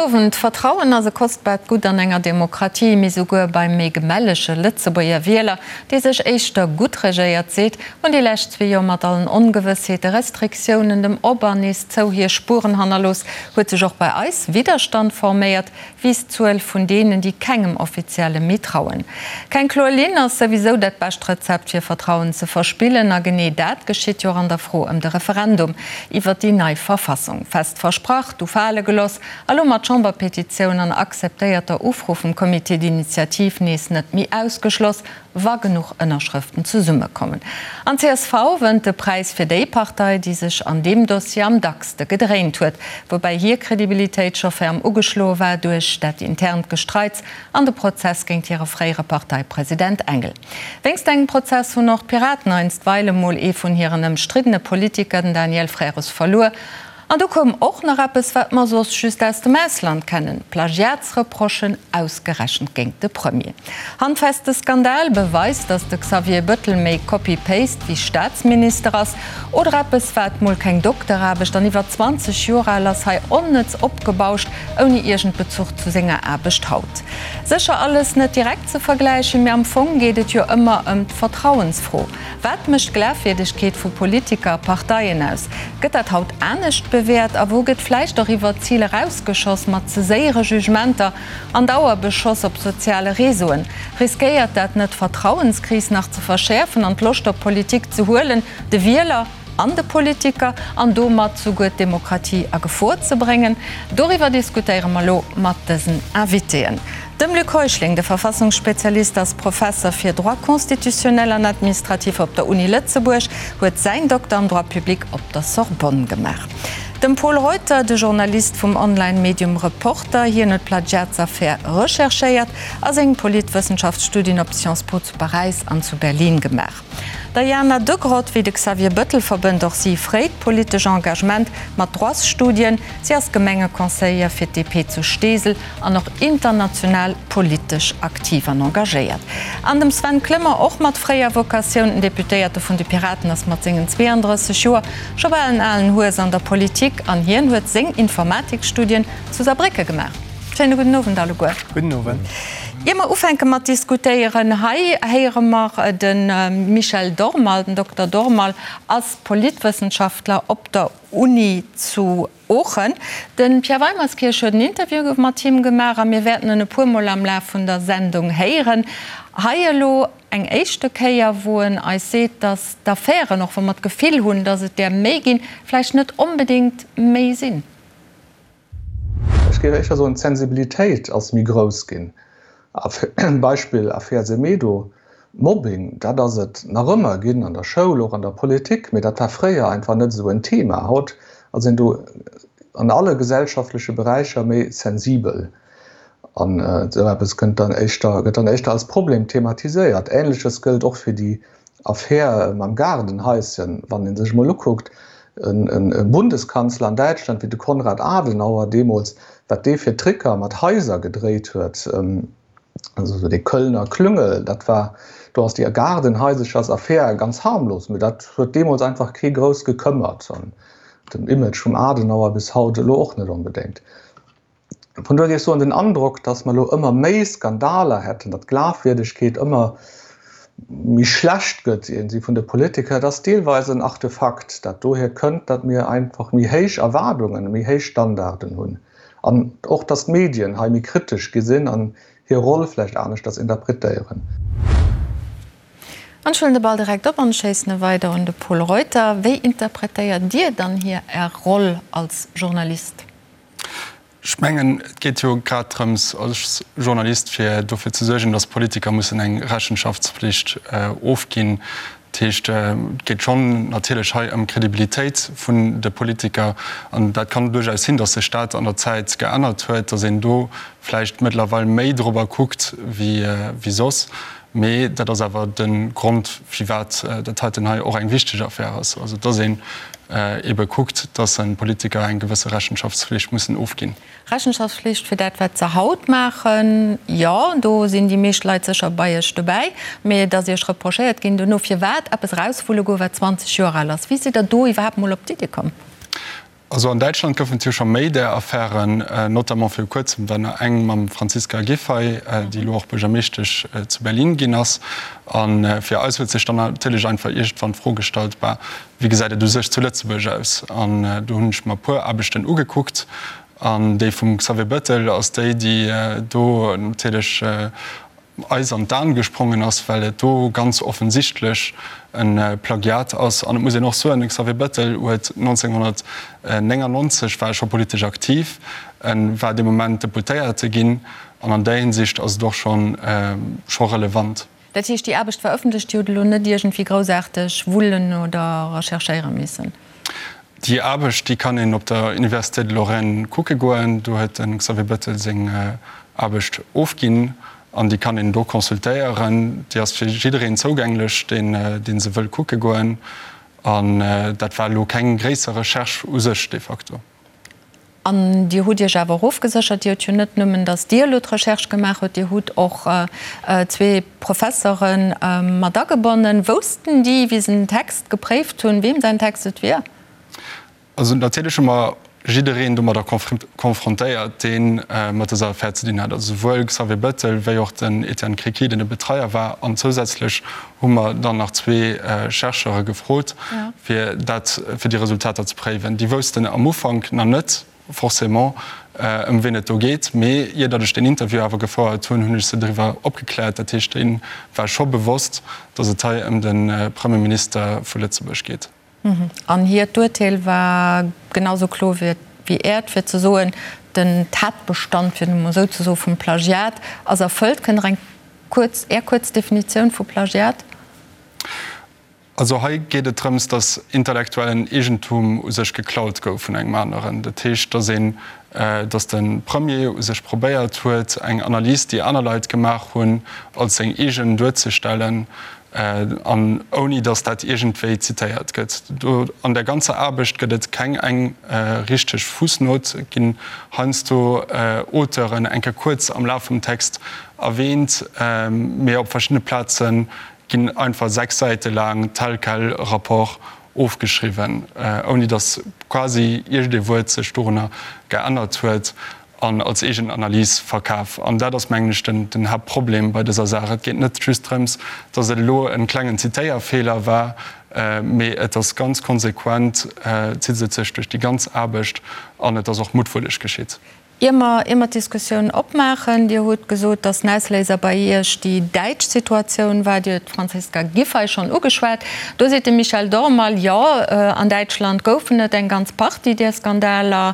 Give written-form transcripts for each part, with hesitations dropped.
Owend. Vertrauen ass e kostbaart Gutt an enger Demokratie, mee souguer beim méi gemellege Lëtzebuerger Wieler, dee sech éischter gutt regéiert seet, hunn déi lescht zwee Joer mat allen Ongewëssheete, Restriktiounen, dem Op an nees zou hir Spueren hannerlooss, huet sech och bei eis Widderstand forméiert, wiisst d'Zuel vun deenen, déi kengem Offizielle méi trauen. Keng kloer Linn ass souwisou dat bescht Rezept fir Vertrauen ze verspillen. A genee dat geschitt jo och an der Fro ëm de Referendum iwwert déi nei Verfassung. Fest versprach, du fale geloss, a lo mat Chamberpetitioun an akzeptéierter Ufro vum Comité d'initiative nees net méi ausgeschloss, wa genuch Ënnerschrëften zesummekommen. An csv wënnt de Präis fir déi Partei, déi sech an deem Dossier am dackste gedréint huet, woubäi hir Kredibilitéit scho ferm ugeschloe war duerch dat internt Gestreits an de Prozess géint hire fréiere Parteipresident Engel. Wéinst engem Prozess hunn och d'Piraten einstweile mol ee vun hiren ëmstriddene Politiker, den Daniel Frères, verluer. An du koum och nach eppes, wat mer soss just aus dem Ausland kennen, Plagiatsreprochen, ausgerechent géint de Premier. Handfeste Skandal beweist, datt de Xavier Bëttel méi Copy-Paste wéi Staatsminister ass. Oder eppes, wat mol keng Dokteraarbecht an iwwer 20 Joer al ass, hei onnëtz opgebauscht, ouni iergend Bezuch zu senger Aarbecht haut. Sécher alles net direkt ze vergläichen, mee am Fong geet et jo ëmmer ëm d'Vertrauensfro. Wat mécht d'Glafwierdegkeet vu Politiker a Parteien aus? Gëtt dat haut anescht bewäert? A wou gëtt vläicht och iwwer d'Zil erausgeschoss mat ze séiere Jugementer an Dauerbeschoss op soziale Réseauen? Riskéiert dat net d'Vertrauenskris nach ze verschäerfen an d'Loscht op Politik ze huelen, de Wieler an de Politiker an domat souguer d'Demokratie a Gefor ze bréngen? Doriwwer diskutéiere mer elo mat dësen Invitéen. Dem Luc Heuschling, de Verfassungsspezialist, ass Professer fir Droit constitutionnel an administratif op der Uni Lëtzebuerg, huet säin Dokter am Droit public op der Sorbonne gemaach. Dem Pol Reuter, de Journalist vum Online-Medium Reporter, hien huet d'Plagiatsaffär recherchéiert a seng Politwëssenschaftsstudien op Sciences Po zu Paräis an zu Berlin gemaach. D'Diana Degrott, wéi de Xavier Bëttel, verbënnt och si fréit politesch Engagement mat Droitsstudien. Si ass Gemengeconseillère fir d'DP zu Steesel an och international politesch aktiv an engagéiert. An dem Sven Clement, och mat fréier Vocatioun, den Deputéierte vun de Piraten ass mat sengen 32 Joer scho bal en alen Hues an der Politik an hien huet seng Informatikstudien zu Saarbrécke gemaach. Schéine gudden Owend alleguer. Gudden Owend. Ier mer ufänke mat diskutéieren, hei héiere mer de Michel Dormal. Den Dokter Dormal ass Politwëssenschaftler op der Uni zu Oochen. De Pierre Weimerskirch huet en Interview mat him gemaach a mir wäerten en e puer Mol am Laf vun der Sendung héieren. Hei elo eng éischte Kéier, wou en eis seet, datt d'Affären, och wa mer d'Gefill hunn, datt et där méi ginn, vläicht net onbedéngt méi sinn. Ech géif éischter soen, d'Sensibilitéit ass méi grouss ginn. Beispill Affär Semedo, Mobbing, dat ass et nach ëmmer ginn an der Schoul, och an der Politik, mee dat war fréier einfach net esou en Thema. Haut ass een do an alle gesellschaftleche Beräicher méi sensibel an esou eppes kënnt dann éischter, gëtt dann éischter als Problem thematiséiert. Ähnleches gëllt och fir déi Affär mam Gaardenhaischen. Wann ee sech emol ukuckt, e Bundeskanzler an Däitschland wéi de Konrad Adenauer deemools, wat dee fir Tricker mat Haiser gedréit huet, also esou dee Kölner Klüngel, dat war, do ass déi Gaardenhaiserchersaffär ganz harmlos, mee dat huet deemools einfach kee grouss gekëmmert an den Image vum Adenauer bis haut elo och net onbedéngt. Vun dohier géif ech soen, den Androck, datt mer elo ëmmer méi Skandaler hätten, datt d'Glafwierdegkeet ëmmer méi schlecht gëtt iergendwéi vun de Politiker, dat ass deelweis en Artefakt, dat dohier kënnt, datt mir einfach méi héich Erwaardungen, méi héich Standarden hunn an och, datt d'Medien hei méi kritesch gi sinn an hir Roll vläicht aneschters interpretéieren. An ech huelen de Ball direkt op an schéissen e weider un de Pol Reuter. Wéi interpretéiert Dir dann hier Är Roll als Journalist? Ech mengen, et geet jo grad drëms als Journalist, fir dofir ze suergen, datt Politiker mussen eng Rechenschaftspflicht ofginn. Dat heescht, et geet schonn natierlech hei ëm d'Kredibilitéit vun de Politiker. An dat kann duerchaus sinn, datt sech dat an der Zäit geännert huet, datt een do vläicht mëttlerweil méi dorobber kuckt wéi soss. Mee dat ass awer de Grond, firwat dat heiten hei och eng wichteg Affär ass, also dass een eebe kuckt, dass Politiker eng gewësse Rechenschaftspflicht mussen ofginn. Rechenschaftspflicht fir dat, wat se haut maachen, jo, do sinn déi meescht Leit sécher bei Iech dobäi. Mee et ass Iech reprochéiert ginn dono, firwat eppes erauswulle goe wat 20 Joer al ass. Wéi sidd Der do iwwerhaapt mol op d'Iddi komm? Also an Däitschland goufen et jo scho méi där Affären, notamment viru kuerzem war nach eng mam Franziska Giffey, déi elo och Buergermeeschtesch zu Berlin ginn ass. A fir eis huet sech dann natierlech einfach iergendwann d'Fro gestallt, bah, wéi gesäit et u sech zu Lëtzebuerg aus? An do hunn ech mer e puer Aarbechten ugekuckt an déi vum Xavier Bettel ass déi, déi do natierlech eis an d'Aen gesprongen ass, well et do ganz offensichtlech e Plagiat ass. An et muss een och soen, de Xavier Bettel huet 1999 war e scho politesch aktiv, e war dee Moment Deputéierte ginn an an där Hinsicht ass et och scho relevant. Dat heescht, déi Aarbecht war ëffentlech, Dir hutt elo net iergendwéi groussaarteg wullen oder recherchéiere missen? Déi Aarbecht, déi kann een op der Université de Lorraine kucke goen. Do huet de Xavier Bettel seng Aarbecht ofginn an déi kann een do consultéieren. Déi ass fir jiddereen zougänglech, deen, dee se wëll kucke goen. An dat war elo keng gréisser Recherche u sech de facto. An Dir hutt Iech awer och ofgeséchert, Dir hutt jo net nëmmen, datt Dir elo d'Recherche gemaach hutt, Dir hutt och zwee Professere mat agebonnen. Woussten déi, wéi se den Text gepréift hunn, weem säin Text et wier? Also natierlech hu mer jiddereen domadder konfrontéiert, dee mat dëser Affär ze dinn hat, also souwuel Xavier Bettel wéi och den Etienne Créquy, deen de Betreier war. An zousätzlech hu mer dann nach zwee Chercheure gefrot, fir dat, fir déi Resultater ze préiwen. Déi woussten am Ufank nach net forcément, ëm wien et do geet, mee ier datt ech deen Interview awer gefouert hunn, hunn ech se driwwer opgekläert. Dat heescht, deene war scho bewosst, datt et hei ëm de Premierminister vu Lëtzebuerg geet. An hiert Urteel war genau sou kloer wéi Äert, fir ze soen, den Tatbestand, fir et emol esou ze soen, vum Plagiat ass erfëllt. Kënnt Der eng kuerz, Är kuerz Definitioun vu Plagiat? Also hei geet et drëms, datt intellektuellen Eegentum u sech geklaut gouf vun engem aneren. Dat heescht, datt een, datt de Premier u sech probéiert huet, eng Analys, déi aner Leit gemaach hunn, als seng eegen duerzestellen an ouni datt dat iergendwéi zitéiert gëtt. Do an där ganzer Aarbecht gëtt et keng eng richteg Fussnot, et ginn heiansdo Auteuren eng Kéier kuerz am Laf vum Text erwäänt, mee op verschiddene Plaze ginn einfach 6 Säite laang tel quel Rapport ofgeschriwwen, ouni datt quasi iergendee Wuert sech dorunner geännert huet an als eegen Analys verkaf. An dat ass, mengen ech, den Haaptproblem bei dëser Saach. Et geet net just drëms, datt et elo e klengen Zitéierfeeler war, mee et ass ganz konsequent, zitt et sech duerch déi ganz Aarbecht an et ass och muttwëlleg geschitt. Ier mer, ier mer d'Diskussioun opmaachen, Dir hutt gesot, datt den Ausléiser bei Iech déi däitsch Situatioun war. Dir hutt d'Franziska Giffey schonn ugeschwat. Do seet de Michel Dormal, jo, an Däitschland goufen et eng ganz Partie där Skandaler.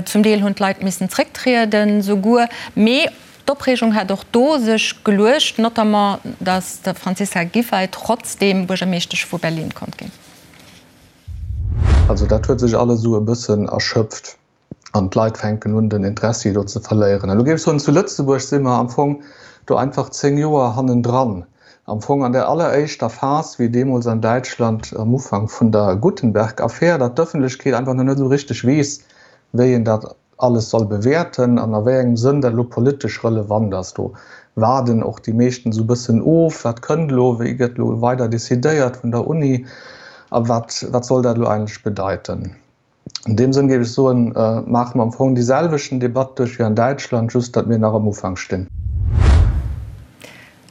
Zum Deel hunn d'Leit missen zrécktrieden souguer. Mee d'Opreegung hätt och do sech geluecht, notamment datt d'Franziska Giffey trotzdeem Buergermeeschtesch vu Berlin konnt ginn. Also dat huet sech alles esou e bëssen erschöpft. an d'Leit fänken un den Interessi do ze verléieren. Elo géif ech soen, zu Lëtzebuerg si mer am Fong do einfach 10 Joer hannendran. Am Fong an der alleréischter Phas, wéi deemools an Däitschland am Ufank vun der Guttenberg-Affär, datt d'Ëffentlechkeet einfach nach net esou richteg weess, wéi een dat alles soll bewäerten an a wéi engem Sënn dat elo politesch relevant ass. Do waarden och déi meeschten esou e bëssen of, wat kënnt elo, wéi gëtt elo weider decidéiert vun der Uni a wat, wat soll dat elo eigentlech bedeiten. An deem Sënn géif ech soen, maache mer am Fong déi selwechten Debatt duerch wéi an Däitschland, just datt mir nach am Ufank stinn.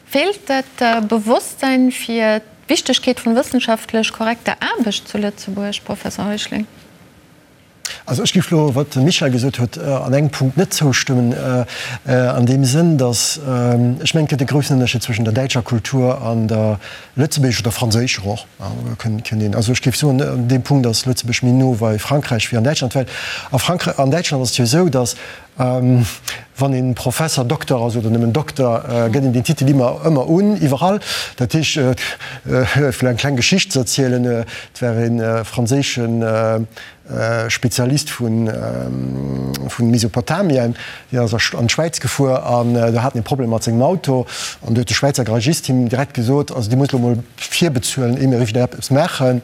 Feelt dat Bewosstsein fir d'Wichtegkeet vun wëssenschaftlech korrekter Aarbecht zu Lëtzebuerg, Professor Heuschling? Also ech géif elo, wat de Michel gesot huet, an engem Punkt net zoustëmmen, an deem Sënn, datt ech mengen, et gëtt e groussen Ënnerscheed zwëschen der däitscher Kultur an der lëtzebuergescher oder franséischer och. Kënnt een, also ech géif soen, an deem Punkt ass Lëtzebuerg méi no bei Frankräich wéi an Däitschland, well a Frankräich, an Däitschland ass et jo esou, datt wann een Professer, Dokter ass oder nëmmen Dokter, gëtt een deen Titel ëmmer, ëmmer un, iwwerall. Dat heescht, fir eng kleng Geschicht ze erzielen, et war ee franséischen Spezialist vu Mesopotamien, deen ass an d'Schwäiz gefuer an do hat en e Problem mat sengem Auto an do huet de Schwäizer Garagist him direkt gesot, also Dir musst elo mol virbezuelen, ier mir iwwerhaapt eppes maachen.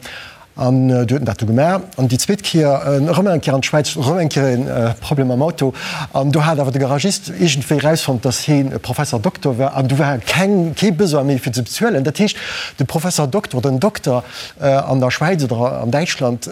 An du huet en dat du gemaach. An déi zweet Kéier erëm eng Kéier an d'Schwäiz, erëm eng Kéier e Problem mam Auto. An do hat awer de Garagist iergendwéi erausfonnt, datt hien e Professor Doktor war. An du war keng, kee Besoin méi fir ze bezuelen. Dat heescht, de Professor Doktor oder den Dokter an der Schwäiz oder an Däitschland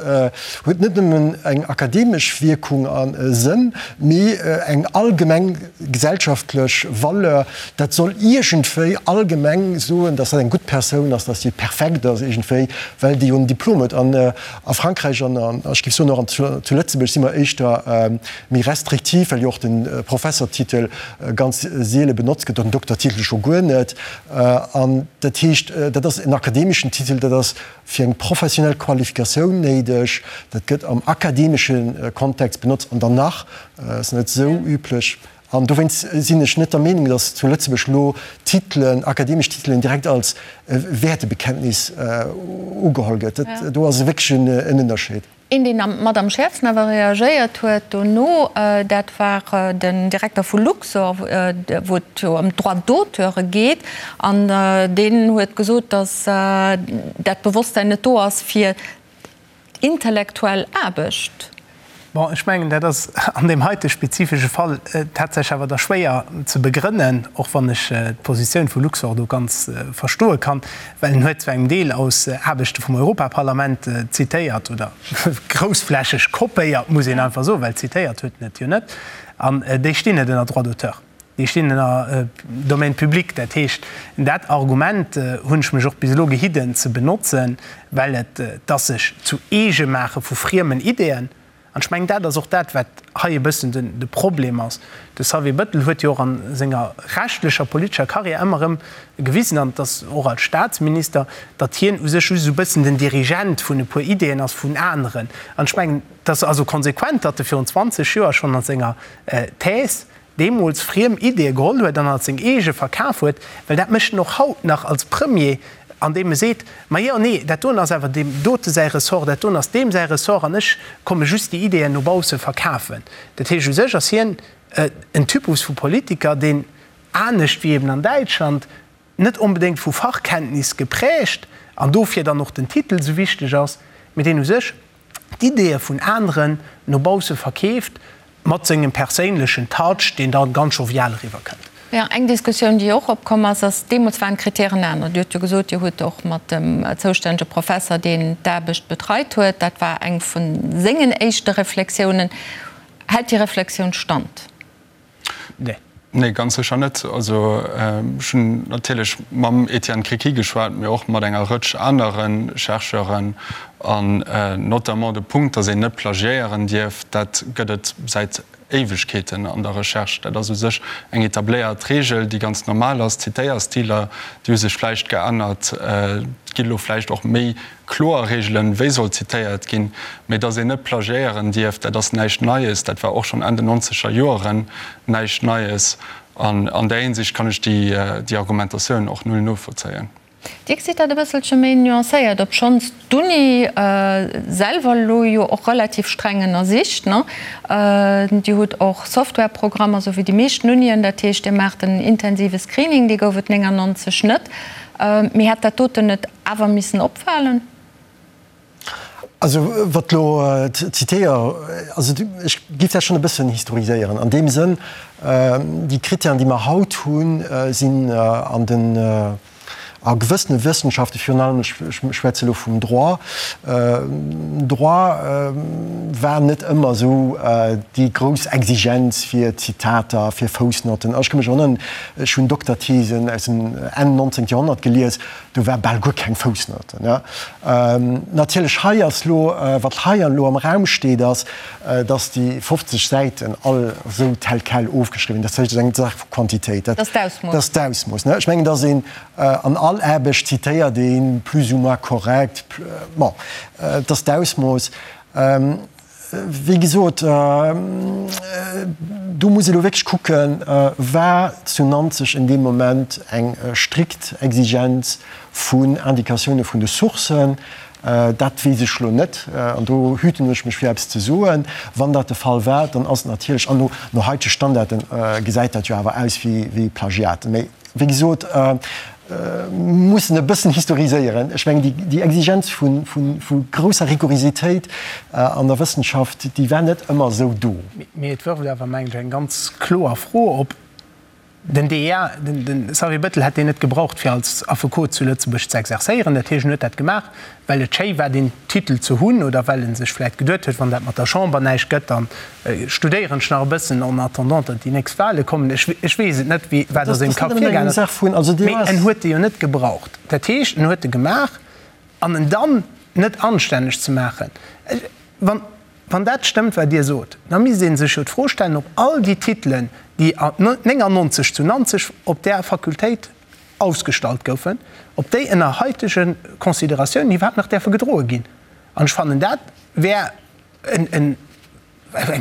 huet net nëmmen eng akademesch Wierkung a Sënn, mee eng allgemeng gesellschaftlech Valeur. Dat soll iergendwéi allgemeng soen, datt dat eng gutt Persoun ass, datt déi perfekt ass iergendwéi, well déi jo en Diplom huet. An a Frankräich an ech géif soen och an zu Lëtzebuerg si mer éischter méi restriktiv, well jo och de Professortitel ganz seele benotzt gëtt, den Doktertitel scho guer net. An dat heescht, dat ass en akademeschen Titel, dat ass fir eng professionell Qualifikatioun néideg, dat gëtt am akademesche Kontext benotzt an dann nach ass net esou üblech. An dowéinst sinn ech net der Meenung, datt zu Lëtzebuerg elo Titelen, akademesch Titelen direkt als Wäertebekenntnis ugeholl gëtt. Do ass wierklech en Ënnerscheed. Een, deen mat am schäerfsten awer reagéiert huet dono, dat war den Direkter vu Luxor, wou et jo ëm d'Droits d'auteure geet. An deen huet gesot, datt dat Bewosstsäin net do ass, fir Intellektuell Aarbecht. Bon, ech mengen, dat ass an deem heite spezifesche Fall tatsächlech awer da schwéier ze begrënnen, och wann ech d'Positioun vu Luxor do ganz verstoe kann, well en huet zu engem Deel aus Aarbechte vum Europaparlament zitéiert oder groussflächeg kopéiert, muss een einfach soen, well zitéiert huet en et jo net, an déi stinn net ënner Droit d'auteur. Déi stinn ënner Domaine public. Dat heescht, dat Argument hunn ech mech och bis elo gehidden ze benotzen, well et ass sech zu eege maache vu friemen Ideeën. An ech mengen, dat ass och dat, wat hei e bëssen de Problem ass. De Xavier Bettel huet jo och a senger rechtlecher, politescher Carrière ëmmer erëm gewisen, an et ass och als Statsminister, datt hien u sech just esou e bëssen den Dirigent vun e puer Ideeën ass vun aneren. An ech mengen, et ass also konsequent, datt e virun 20 Joer schonn a senger Thèse deemools friem Ideeë geholl huet an als seng eege verkaf huet, well dat mécht en och haut nach als Premier, andeem e seet, Ma jo, nee, dat doen ass awer deem dote säi Ressort, dat doen ass deem säi Ressort an ech komme just déi Ideeën no bausse verkafen. Dat heescht, u sech ass hien en Typus vu Politiker, deen, anescht wéi eben an Däitschland, net onbedéngt vu Fachkenntnis geprägt an dofir dann och den Titel esou wichteg ass, mee deen u sech d'Ideeë vun aneren no bausse verkeeft, mat sengem perséinlechen Touch, deen da ganz jovial eriwwer kënnt. Jo, eng Diskussioun, déi och opkomm ass, ass, deemools waren d'Kritären aner. Dir hutt jo gesot, Dir hutt och mat dem zoustännege Professer, deen d'Aarbecht betreit huet, dat war eng vu sengen éischte Reflexiounen. Hält déi Reflexioun Stand? Nee. Nee, ganz sécher net. Also ech hunn natierlech mam Etienne Criqui geschwat, mee och mat enger Rëtsch anere Chercheuren. An notamment de Punkt, datt een net plagiéieren dierf, dat gëtt et säit Éiwegkeeten an der Recherche. Dat ass u sech eng etabléiert Reegel, déi ganz normal ass. D'Zitéierstiler, déi hu sech vläicht geännert. Et gi lo vläicht och méi kloer Reegelen, wéi soll zitéiert ginn, mee dass een net plagiéieren dierf, dat ass näischt Neies, dat war och schonn Enn den nonzeger Joeren näischt Neies. An an där Hinsicht kann ech déi Argumentatioun och null novollzéien. Dir gesitt dat e bësselche méi nuancéiert, obschonns d'Uni selwer elo jo och relativ streng ënnersicht, ne? Dir hutt och Softwareprogrammer, esou wéi déi meeschten Unien, dat heescht, Dir maacht en intensive Screening, dee gouf et 99 net. Mee hätt dat doten net awer missen opfalen? Also wat elo d'Zitéier, also ech géif dat schonn e bëssen historiséieren an deem Sënn, déi Kritären, déi mer haut hunn, sinn an den, a gewëssene Wëssenschaften, virun allem, ech schwätze elo vum Droit, Droit war net ëmmer esou déi grouss Exigenz fir Zitater, fir Foussnotten. Ech ka mech erënneren, Ech hunn Dokterthesen aus dem Enn 19. Joerhonnert gelies, do war bal guer keng Foussnote. Natierlech hei ass lo, wat hei elo am Raum steet, ass, datt déi 50 Säiten all esou tel quel ofgeschriwwen ginn. Dat heescht, et ass eng Saach vu Quantitéit. Dat ass d'Ausmooss. Ech mengen, datt een an all Aarbecht zitéiert een plus ou moins korrekt. Bon, et ass d'Ausmooss. Wéi gesot, do muss ee lo wierklech kucken, War zu Nanzeg en deem Moment eng strikt Exigenz vun Indikatioune vun de Sourcen? Dat weess ech lo net an do hüten ech mech fir eppes ze soen. Wann dat de Fall war, dann ass et natierlech, an no haitege Standarde gesäit dat jo awer aus wéi Plagiat. Mee wéi gesot. mussen e bëssen historiséieren. Ech mengen, déi Exigenz vu grousser Rigorositéit an der Wëssenschaft, déi war net ëmmer esou do. Mee et wërft awer, mengen ech, eng ganz kloer Fro op. Den DEA, de Xavier Bettel hätt deen net gebraucht, fir als Affekot zu Lëtzebuerg ze exerzéieren. Dat heescht, en huet dat gemaach, well et schéi war, deen Titel ze hunn oder well e sech vläicht geduet huet, wann dat mat der Chamber näischt gëtt, da studéieren ech nach e bëssen en attendant, datt déi nächst Wahle kommen. Ech weess et net, wat a sengem Kapp virgaangen ass, mee en huet e jo net gebraucht. Dat heescht, en huet e gemaach an en dann net anstänneg ze maachen. Wann dat stëmmt, wat Dir sot, da misst ee sech jo d'Fro stellen, ob all déi Titelen, déi 99 zu Nanzeg op där Fakultéit ausgestallt goufen, ob déi ënner haitege Consideratiounen iwwerhaapt nach däerfe gedroe ginn. An ech fannen, dat wär eng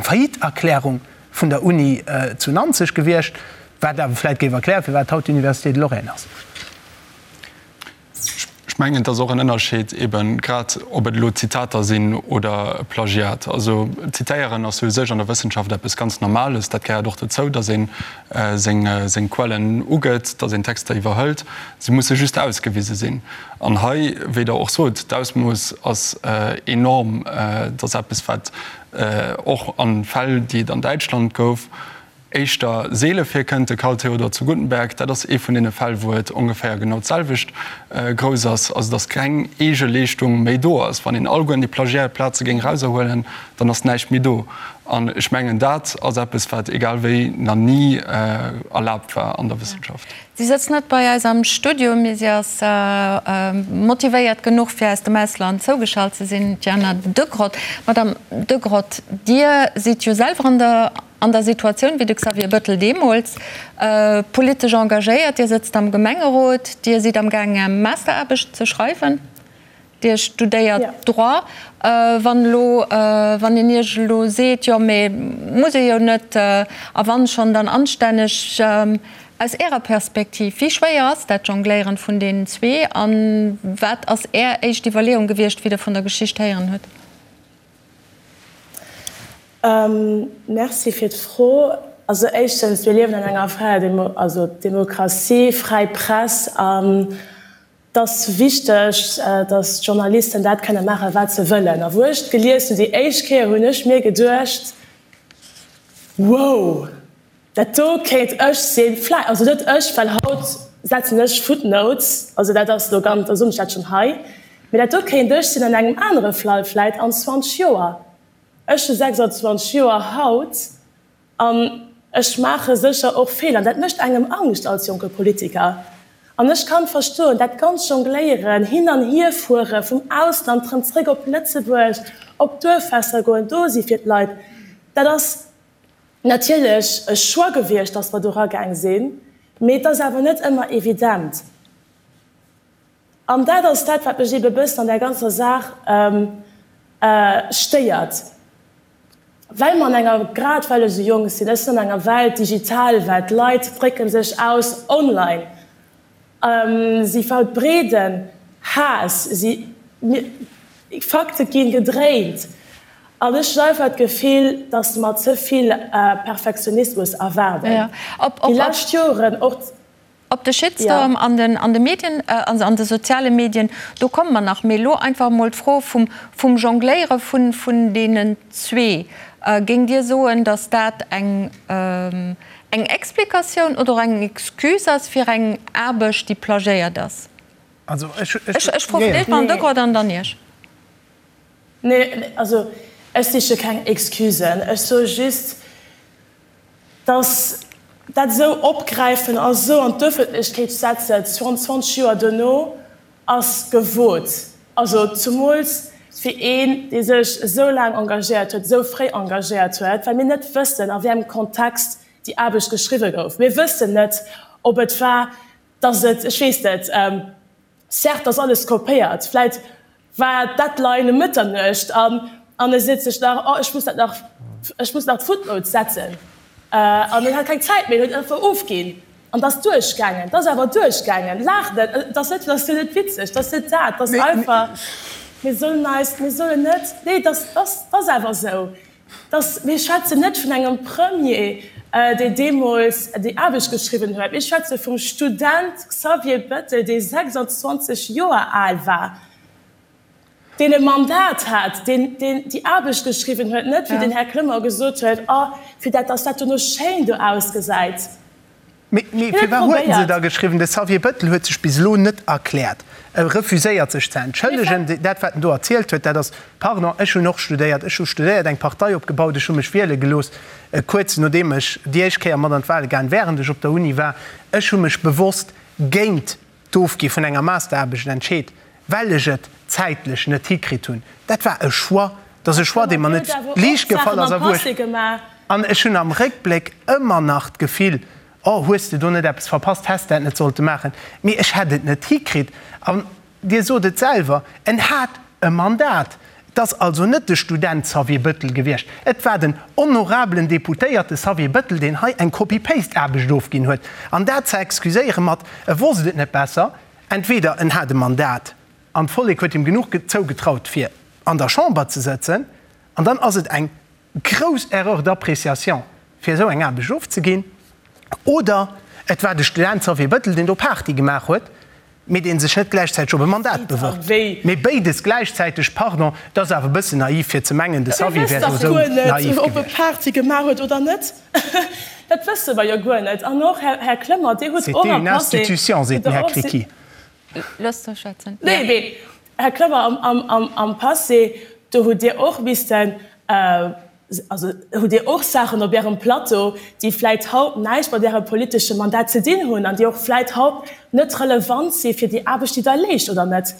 Faillite-Erklärung vun der Uni zu Nanzeg gewiescht, wat awer vläicht géif erklären, firwat haut d'Université de Lorraine ass. Ech mengen, et ass och en Ënnerscheed eben, grad ob et elo Zitater sinn oder e Plagiat. Also zitéieren ass jo u sech an der Wëssenschaft eppes ganz Normales. Dat gehéiert och dozou, datt ee seng Quellen ugëtt, datt een Texter iwwerhëlt. Se musse just ausgewise sinn. An hei, wéi Der och sot, d'Ausmooss ass enorm. Et ass eppes, wat och a Fäll, déi et an Däitschland gouf, éischter seele virkënnt, de Karl Theodor zu Guttenberg, dat ass ee vun deene Fäll, wou et ongeféier genau d'selwecht grouss ass, also datt keng eege Leeschtung méi do ass. Wann een alleguerten déi Plagiat-Plaze géing erauserhuelen, dann ass näischt méi do. An ech mengen, dat ass eppes, wat egal wéi nach ni erlaabt war an der Wëssenschaft. Si sëtzt net bei eis am Studio, mee si ass motivéiert genuch, fir aus dem Ausland zougeschalt ze sinn, d'Jana Degrott. Madame Degrott, Dir sidd jo selwer an der An der Situatioun wéi de Xavier Bettel deemools, politesch engagéiert, Dir sëtzt am Gemengerot, Dir sidd am gaang Är Masteraarbecht ze schreiwen, Dir studéiert Droit. Wann elo, wann een Iech elo seet, jo mee muss ee jo net, a wann schonn, dann anstänneg, aus Ärer Perspektiv, wéi schwéier ass dat Jongléieren vun deenen zwee a wat ass Är éischt Iwwerleeung gewiescht, wéi Der vun der Geschicht héieren hutt? Merci fir d'Fro. Also éischtens, mir liewen an enger fräier Demo, also Demokratie, fräi Press an et ass wichteg, datt d'Journalisten dat kënne maachen, wat se wëllen. A wou ech et gelies hunn déi éischt Kéier, hunn ech mir geduecht, Wow! Dat do kéint ech sinn, vläi, also net ech, well haut setzen ech Footnotes, also dat ass elo ganz, da soen ech dat schonn hei, mee dat do kéint ech sinn an engem anere Fall vläit an 20 Joer. Ech hu 26 Joer haut an ech maache sécher och Feeler an dat mécht engem Angscht als jonke Politiker. An ech kann verstoen, dat ganz Jongléieren, hin an hierfuere vum Ausland erëm zréck op Lëtzebuerg, op Duerffester goen, do si fir d'Leit, dat ass, natierlech e Choix gewiescht, dass mer do eragaang sinn, mee et ass awer net ëmmer evident. An dat ass dat, wat mech eebe bëssen an där ganzer Saach stéiert, well mer an enger, grad well ech esou jonk sinn, ech sinn an enger Welt, digital Welt, d'Leit drécke sech aus online, Si verbreeden Haass, si, Fakte ginn gedréint an ech hunn einfach d'Gefill, datt mer ze vill Perfektionismus erwaarden. Déi lescht Joren och. Op de Shitstorm an den an de Medien, also an de soziale Medien, do komme mer nach. Mee elo einfach emol d'Fro vum vum Jongléiere vun vun deenen zwee. Géingt Dir soen, datt dat eng Eng Explikatioun oder och eng Excuse ass fir eng Aarbecht, déi plagiéiert ass? Also ech, ech, ech froe fir d'éischt d'Madame Degrott an dann Iech. Nee, also ech siche keng Excusen. Ech soe just, dass dat esou opgräifen a esou an d'Öffentlechkeet setzen, 22 Joer duerno, ass gewot. Also zumools fir een, dee sech esou laang engagéiert huet, esou fréi engagéiert huet, well mir net wëssen, a wéi engem Kontext déi Aarbecht geschriwwe gouf. Mir wëssen net, ob et war, datt et, ech weess net, certes ass alles kopéiert, vläit war d'Deadline ëm Mëtternuecht an an e seet sech nach, oh ech muss dat nach, ech muss nach d'Footnotes setzen an en hat keng Zäit méi, en huet einfach ofginn. An 't ass duerchgaangen, 't ass awer duerchgaangen. Laacht net, et ass net, 't ass jo net witzeg, 't ass net dat, 't ass einfach, mir sollen eis, mir sollen net, nee, 't ass, 't ass, 't ass awer esou, 't ass, mir schwätzen net vun engem Premier. deen deemools déi Aarbecht geschriwwen huet. Mir schwätze vum Student Xavier Bettel, dee 26 Joer al war, deen e Mandat hat, deen déi Aarbecht geschriwwen huet, net, wéi den Här Clement gesot huet, oh, fir dat, dass dat dono schéin do ausgesäit. Mee firwat huet en se da geschriwwen? De Xavier Bettel huet sech bis elo net erkläert. E refuséiert sech ze entschëllegen. Dat wat en do erzielt huet, dat ass, pardon, ech hunn och studéiert, ech hu studéiert, eng Partei opgebaut, ech hu mech wiele gelooss, kuerz nodeem ech déi éischt Kéier mat an d'Wale gaang, wärend ech op der Uni war. Ech hu mech bewosst géint d'Ofgi vun enger Masteraarbecht entscheet, well ech et zäitlech net hikritt hunn. Dat war e Choix. Dat ass e Choix, dee mer net liicht gefall ass a wou ech, an ech hunn am Réckbléck ëmmer nach d'Gefill, oh, hues de do net eppes verpasst, häss de dat net sollte maachen. Mee ech hätt et net hikritt. An Dir sot et selwer, en hat e Mandat. Et ass also net de Student Xavier Bëttel gewiescht, et war den honorabelen Deputéierte Xavier Bëttel, deen hei eng Copy-Paste-Aarbecht ofginn huet. An dat ze excuséiere mat, e wosst et net besser, entweder en hat e Mandat an d'Vollek huet him genuch zougetraut, fir an der Chamber ze sëtzen, an dann ass et eng grouss Erreur d'appréciation, fir esou eng Aarbecht ofzeginn, oder et war de Student Xavier Bëttel, deen do Party gemaach huet, mee dee sech net gläichzäiteg op e Mandat bewërbt. Mee béides gläichzäiteg, pardon, dat ass awer e bëssen naiv, fir ze mengen, de Xavier wär do esou naiv gewiescht. Ob e Party gemaach huet oder net, dat wësse mer jo guer net. An och, Här Clement, Dir hutt och am Passé. C'était une institution, seet den Här Criqui. Loosst mech schwätzen. Nee, mee, Här Clement, am Passé, do hutt Dir och missten, also hutt Dir och Saachen op Ärem Plateau, déi vläit haut näischt mat Ärem politesche Mandat ze dinn hunn an déi och vläit haut net relevant si fir déi Aarbecht, déi Der leescht, oder net?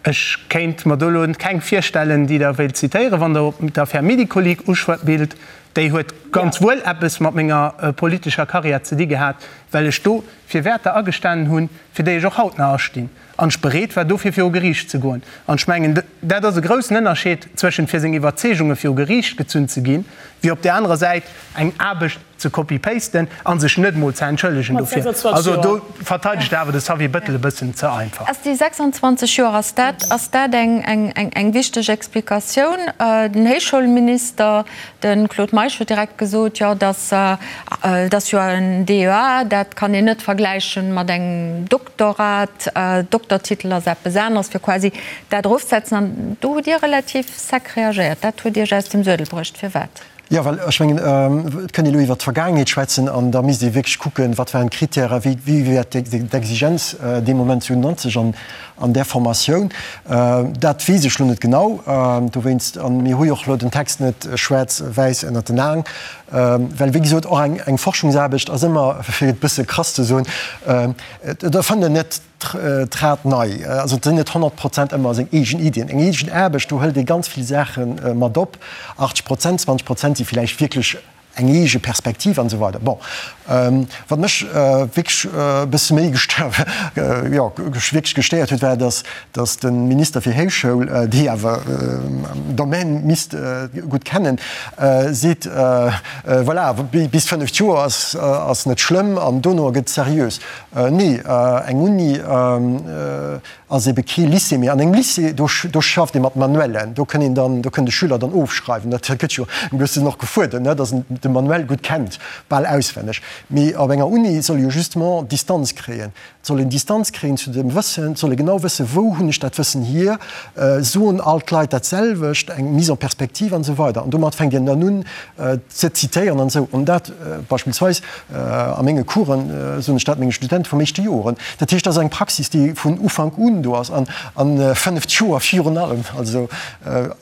Ech kéint mer do elo keng virstellen, déi Der wéilt zitéieren, wann Der op d'Affär Médicoleak uspillt. Déi huet ganz wuel eppes mat menger politescher Karriär ze di gehat, well ech do fir Wäerter agestanen hunn, fir déi ech och haut nach astinn, an ech bereet war, dofir viru Geriicht ze goen. An ech mengen, dat ass e groussen Ënnerscheed zwëschent fir seng Iwwerzeegunge viru Geriicht gezunn ze ginn, wéi op där anerer Säit eng Aarbecht ze copy-pasten a sech net emol ze entschëllegen dofir. Also do verteidegt Der awer de Xavier Bettel e bëssen ze einfach. Ass déi 26 Joer, ass dat, ass dat eng, eng, eng wichteg Explikatioun? Den Héichschoulminister, De Claude Meisch huet direkt gesot, jo, dass et ass jo en DEA, dat kann een net vergläichen mat engem Doktorat, Doktertitel ass eppes aneres, fir quasi dat erofzesetzen. An do hutt Dir relativ sec reagéiert. Dat huet Iech aus dem Suedel bruecht. Firwat? Jo, well ech mengen, et kënnt ee elo iwwert d'Vergaangenheet schwätzen an da misst ee wierklech kucken, wat waren d'Kritären, wéi wéi war d'Exigenz dee Moment 97 an An där Formatioun, dat weess ech lo net genau, dowéinst, a mir hu jo och lo den Text net schwaarz-wäiss ënnert den Aen, well wéi gesot, och eng Forschungsaarbecht ass ëmmer, fir et e bësse krass ze soen, et erfënnt een net d'Rad nei, also et sinn net 100 Prozent ëmmer seng eegen Iddien. Eng eegen Aarbecht, do hëlt ee ganz vill Saache mat op, 80 Prozent, 20 Prozent si vläicht wierklech eng eege Perspektiv an esou weider. Bon, wat mech wierklech e bësse méi gestéiert, jo, wierklech gestéiert huet, war, dass, dass de Minister fir Héichschoul, dee awer den Domaine misst gutt kennen, seet, voilà, bis fënneft Joer ass, ass net schlëmm an dono gëtt seriös. Nee, eng Uni, Ass ebe kee Lycée méi. An engem Lycée, do, do schafft ee mat Manuellen, do kënn een dann, do kënn de Schüler dann ofschreiwen. Dat gëtt jo e bëssen och gefuerdert, ne, dass en de Manuel gutt kennt, bal auswenneg. Mee op enger Uni soll ee jo justement Distanz kréien. Et soll een Distanz kréien zu dem Wëssen, et soll ee genau wëssen, wou hunn ech dat Wëssen hier, soen all d'Leit dat selwecht, eng Mise en perspective an esou weider. An domat fänkt een dann un ze zitéieren an esou. An dat beispillsweis A menge Coursen soen ech dat menge Studente vum éischte Joer. Dat heescht, dat ass eng Praxis, déi vun Ufank un do ass an a fënneft Joer virun allem, also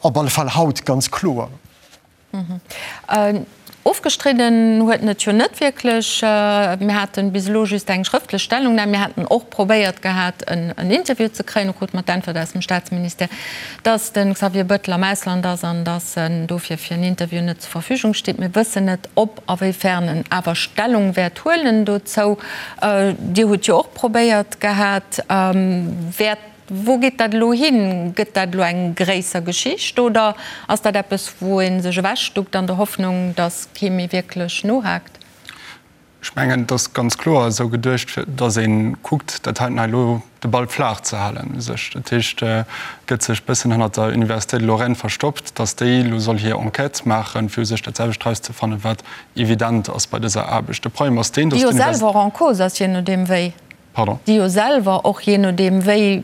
op alle Fall haut ganz kloer. Ofgestridden huet en et jo net wierklech. Mir haten bis elo just eng schrëftlech Stellungnam. Mir haten och probéiert gehat, en Interview ze kréien. Do krute mer d'Äntwert aus dem Staatsministère, dass de Xavier Bettel am Ausland ass an dass en dofir fir en Interview net zur Verfügung steet. Mir wëssen net, ob a wéi fern en awer Stellung wäert huelen dozou. Dir hutt jo och probéiert gehat. Wäert, wou geet dat elo hin? Gëtt dat elo eng gréisser Geschicht oder ass dat eppes, wou ee sech ewechduckt an der Hoffnung, datt kee méi wierklech nohaakt? Ech mengen, et ass ganz kloer esou geduecht, fir datt ee kuckt, dat heiten hei elo de Ball flaach ze halen u sech. Dat heescht, et gëtt sech e bëssen hannert der Université de Lorraine verstoppt, datt déi elo soll hir Enquête maachen, fir u sech dat selwecht erauszefannen, wat evident ass bei dëser Aarbecht. De Problem ass deen, datt Déi jo selwer och en cause ass, je nodeem wéi. Pardon? Déi jo selwer och jee nodeem wéi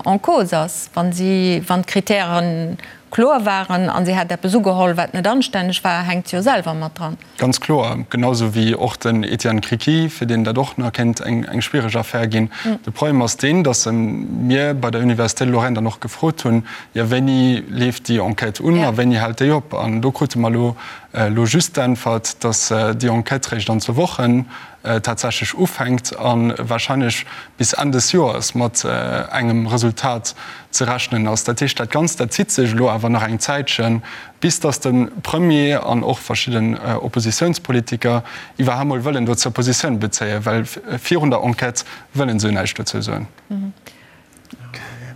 en cause ass, wa si, wann d'Kritäre kloer waren a si hätt eppes ugeholl, wat net anstänneg war, hänkt se jo selwer mat dran. Ganz kloer, genau esou wéi och den Etienne Criqui, fir deen dat och nach kéint eng schwiereg Affär ginn. De Problem ass deen, datt mir bei der Université de Lorraine dann och gefrot hunn, jo wéini leeft déi Enquête un a wéini hält déi op? An do krute mer elo elo just d'Äntwert, datt déi Enquête réischt an zwou Wochen tatsächlech ufänkt a wahrscheinlech bis Enn des Joers mat engem Resultat ze rechnen ass. Dat heescht, dat Ganzt, dat zitt sech elo awer nach eng Zäitchen, bis datt de Premier an och verschidden Oppositiounspolitiker iwwerhaapt mol wëllen dozou Positioun bezéien, well virun der Enquête wëllen se jo näischt dozou soen.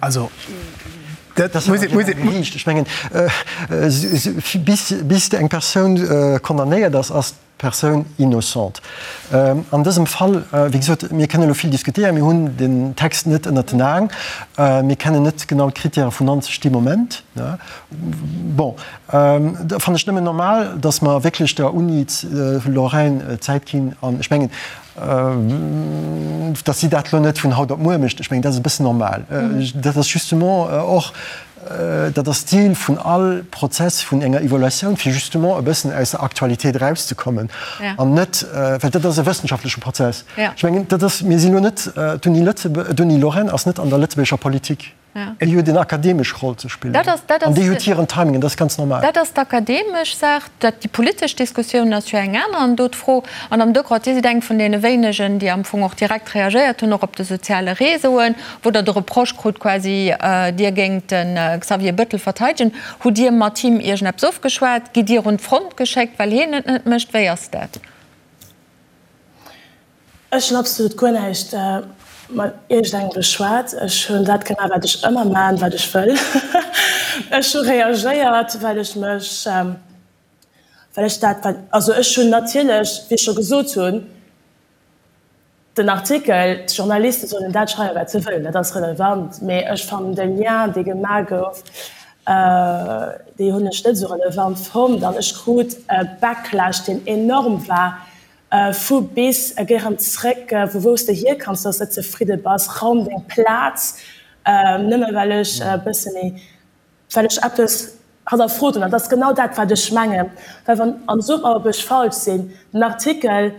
Also, dat muss ee. Ech mengen, bis eng Persoun condamnéiert ass, ass Persoun innocente. An dësem Fall, wéi gesot, mir kënnen elo vill diskutéieren, mir hunn den Text net ënnert den Aen, mir kennen net genau d'Kritäre vun 90 dee Moment. Bon, da fannen ech nëmmen normal, datt mer wierklech der Uni Lorraine Zäit ginn. An ech mengen, datt si dat elo net vun haut op muer mécht, ech mengen, dat ass e bëssen normal. Dat ass justement och Dat ass d'Zil vun all Prozess vun enger Evaluatioun, fir justement e bëssen aus der Aktualitéit erauszekommen an net, well dat ass e wëssenschaftleche Prozess. Ech mengen, dat ass, mir sinn elo net, d'Uni Lëtzebuerg, d'Uni Lorraine ass net an der lëtzebuergescher Politik. Déi huet en akademesch Roll ze spillen an déi huet hiren Timing an dat ass ganz normal. Dat ass d'akademesch Saach. Dat, déi politesch Diskussioun ass jo eng aner an do d'Fro. An am Decroix, Dir sidd eng vun deene wéinegen, déi am Fong och direkt reagéiert hunn, och op de soziale Réseauen, wou Der de Reproche krut quasi, Dir géingt de Xavier Bettel verteidegen. Hutt Dir mat him iergendeppes ofgeschwat? Gitt Dir un d'Front geschéckt, well hien et net mécht? Wéi ass dat? Ech hunn absolut guer näischt mat iergendengem beschwat. Ech hunn dat gemaach, wat ech ëmmer maachen, wat ech wëll. Ech hu reagéiert, well ech mech, well ech dat, wat, also ech hunn natierlech, wéi ech scho gesot hunn, den Artikel, d'Journaliste sollen dat schreiwen, wat se wëllen, dat ass relevant, mee ech fannen de Lien, dee gemaach gouf, dee hunn ech net esou relevant fonnt an ech krut e Backlash, deen enorm war, Vu bis, géi rëm zréck vu wou s de hierkanns, dass s net zefridde bass, raum deng Plaz, nëmme well ech e bësse méi, well ech eppes hannerfrot hunn. An dat ass genau dat, wat ech mengen, well wann, an sot mer, ob ech falsch sinn, den Artikel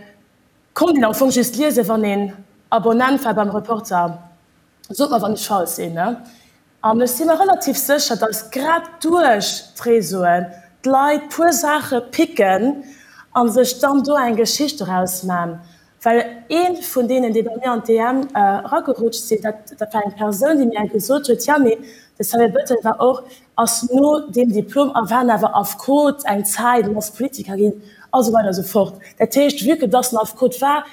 konnt een am Fong just liesen, wann een Abonnent war beim Reporter. Sot mer, wann ech falsch sinn. An ech si mer relativ sécher, dass grad duerch d'Réseauen d'Leit puer Saache picken a sech dann do eng Geschicht doraus man. Well ee vun deenen, déi bei mir an d'DM eragerutscht sinn, dat dat war eng Persoun, déi mir gesot huet, Jo, mee de Xavier Bettel war och, ass no deem Diplom a war awer Affekot eng Zäit an ass Politiker ginn a sou weider a sou fort. Dat heescht, vue que dass en Affekot war,